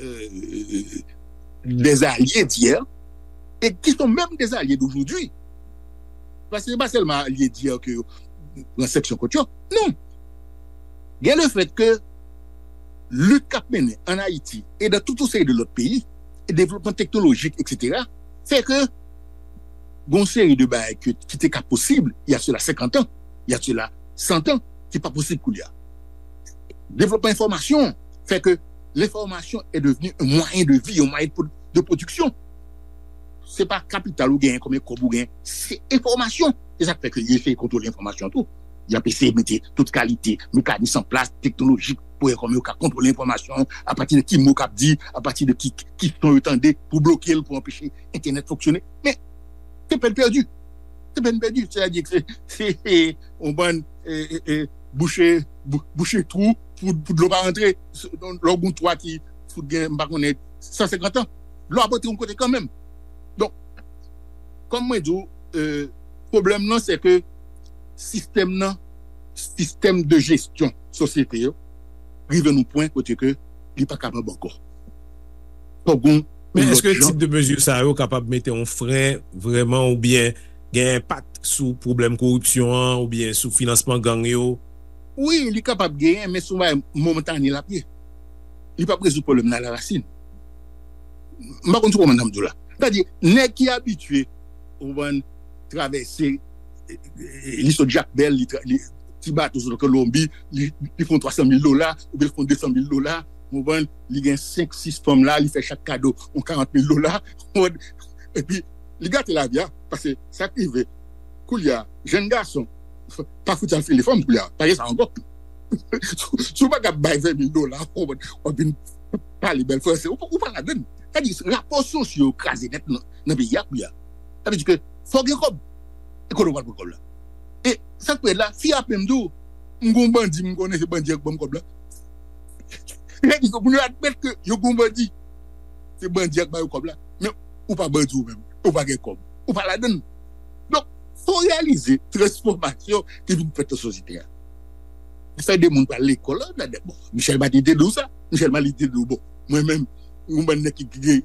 e, des alliés d'hier, et qui sont même des alliés d'aujourd'hui. Paske se pa sèlman alye d'hier ke yo pran sanksyon kont yo. Non. Gen le fèt ke lit k ap mennen an Ayiti e dan tout yon seri de lòt peyi, e devlopman teknolojik, etsetera, fè ke gon seri de bagay ke, ki te ka posib, il y a cela cinquante ans, il y a cela cent ans, ki pa posib koulye a. Devlopman enfòmasyon fè ke l'information est devenue un moyen de vie, un moyen de pro-, de production. Se pa kapital ou genyen, konbyen kòb ou genyen, se enfòmasyon. Se sa k fè ke yo eseye kontwole enfòmasyon tou. Y ap eseye mete tout kalite mekanis an plas, teknolojik, pou wè kòman yo ka kontwole enfòmasyon, apati de ki mo k ap di, apati de ki, ki son yo tande, pou bloke l, pou anpeche entènèt fonksyone. Men, se pèn pèdi. Se pèn pèdi. Sètadi ke se, se, se yon bann e, e, e, bouche, bou-, bouche twou pou, pou dlo pa rantre. Lè w gen yon twa ki fout gen, m pa konnen, san senkant an, dlo ap rantre yon kote kanmenm. Donk, Kòm mwen di w, pwoblèm nan se ke sistèm nan, sistèm de jesyon sosyete yo, rive nan pwen kote ke li pa kapab ankò. Fòk gon Men èske tip de mezi sa yo kapab mete yon fren vrèman oubyen gen enpak sou pwoblèm koripsyon an oubyen sou finansman gang yo? Wi, li kapab genyen, men se yon bagay momantane l ap ye. Li p ap rezoud pwoblèm nan alarasin. M pa konn si w konprann sa m di w la. Sètadi, nèg ki abitye, ou konprann, travèse, li sot Jakmèl, li, li ti bato sot Kolonbi, li, li fè yon twa san mil dola, oubyen li fè yon de san mil dola, ou konprann, li gen senk, sis fanm la, li fè chak kado yon karant mil dola, ou konprann, epi li gate lavi a, paske sa k rive, koulye a, jèn gason, pa fout al file fanm koulye a, pa gen sa ankò. Si w pa ka bay ven mil dola, ou konprann, w ap vin pale bèl franse, ou pa ladann. Sètadi, rapò sosyo yo kraze nèt nan peyi a koulye a. Sa vle di ke fò gen kòb. E kote w pral pran kòb la? E sa k pi rèd la, fi a ap menm di w, m gon bandi, m konnen se bandi a k ban m kòb la. Sètadi ke moun yo admèt ke yo gon bandi. Se bandi a k ba yo kòb la. Men ou pa bandi ou menm. Ou pa gen kòb. Ou pa ladann. Donk, fò w reyalize transfòmasyon ki vin fèt nan sosyete a. Fè de moun pral lekòl, la, bon, Michel Martelly te di w sa. Michel Martelly te di w, bon, mwen menm, yon bann nèg ki gen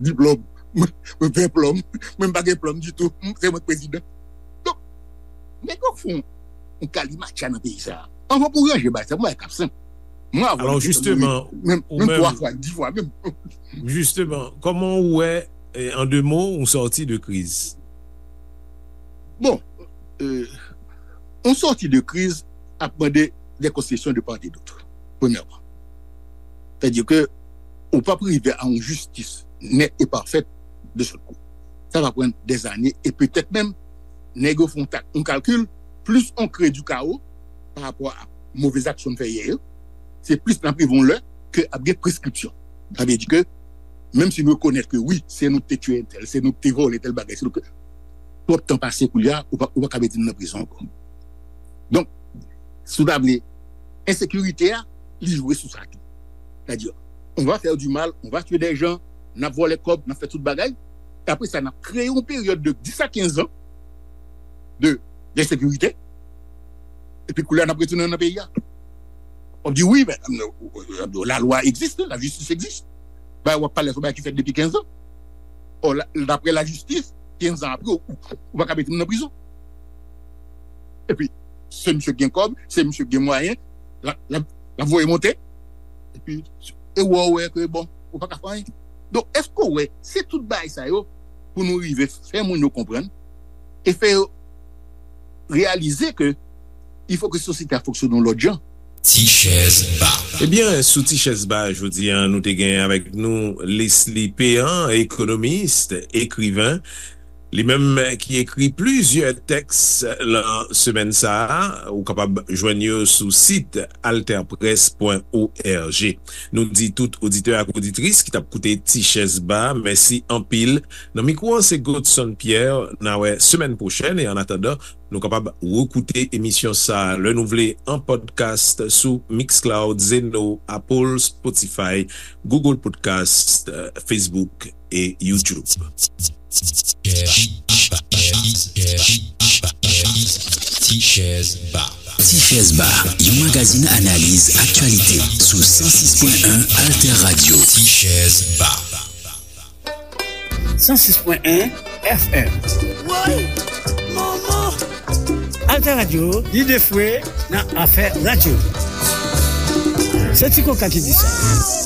diplòm, mwen ven plòm, mwen pa gen plòm ditou, se mwen k prezidan. Donk, nèg yo fè yon kalimatcha nan peyi sa. Anvan pou ranje bagay sa, mwen k ap senp. Mwen avè w, alò, jisteman, menm twa fwa, di fwa menm. Jisteman, kòman ou wè, an de mo, yon sòti de kriz? Bon, yon sòti de kriz ap mande de konsesyon de part et d'autre, premyèman. Sètadi ke ou p ap rive a yon jistis nèt e pafèt de sòt kou. Sa va pran dèzane e petèt menm nèg yo fè yon kalkil, plis on kreye di kawo pa rapò a move aksyon n fè yè yo, se plis n ap rive yon lè ke ap gen preskripsyon. Sa vle di ke, menm si n rekonèt ke wi, se nou ki te tiye entèl, se nou ki te vòlè tèl bagay, se nou ki, twòp tan pase koulye a, ou pa, ou pa ka mete n nan prizon ankò. Donk, si w ta vle, ensekirite a, li jwe sou sa tou. Sètadi, on va faire du mal, on va tuer des gens, n ap vòlè kòb, n ap fè tout bagay, e apre sa, n ap kreye yon peryòd de dis a kenz an de, de sekirite, epi koulye a n ap retounen nan peyi a. W ap di, wi, men, lalwa egziste, lajistis egziste. Bagay w ap pale sou bagay ki fèt depi kenz an. Ò, daprè lajistis, kenz an apre, ou pa ka mete m nan prizon. Epi, se misye ki gen kòb, se misye ki gen mwayen, l ap voye monte. Epi, e wè, w wè ke, bon, ou pa ka fè anyen. Donk, èske w wè, se tout bagay sa yo pou nou rive fè moun yo konprann e fè yo reyalize ke il faut que sosyete a fonksyone yon lòt jan. Ti chèz ba. Ebyen, sou Ti chèz ba jodi a, nou te gen avèk nou Leslie Péan, ekonomis, ekriven. Li menm ki ekri plizyè tèks lan semèn sa a, ou kapab jwenn yo sou sit alterpresse point org. Nou di tout oditè ak oditris ki t ap koute Ti chèz ba, mèsi anpil. Nan mikwo an se Godson Pierre, n a wè semèn pwochèn, e annatandan, nou kapab rekoute emisyon sa a lè nou vle an podcast sou Mixcloud, Zeno, Apple, Spotify, Google Podcast, Facebook e YouTube. Ti chèz ba. Ti chèz ba, yon magazin analiz aktyalite sou san sis pwen en Alter Radio. Ti chèz ba. san sis pwen en F M. Woy! Manman! Alter Radio, lide fwe nan afè radyo. Se Ti Koka ki di sa.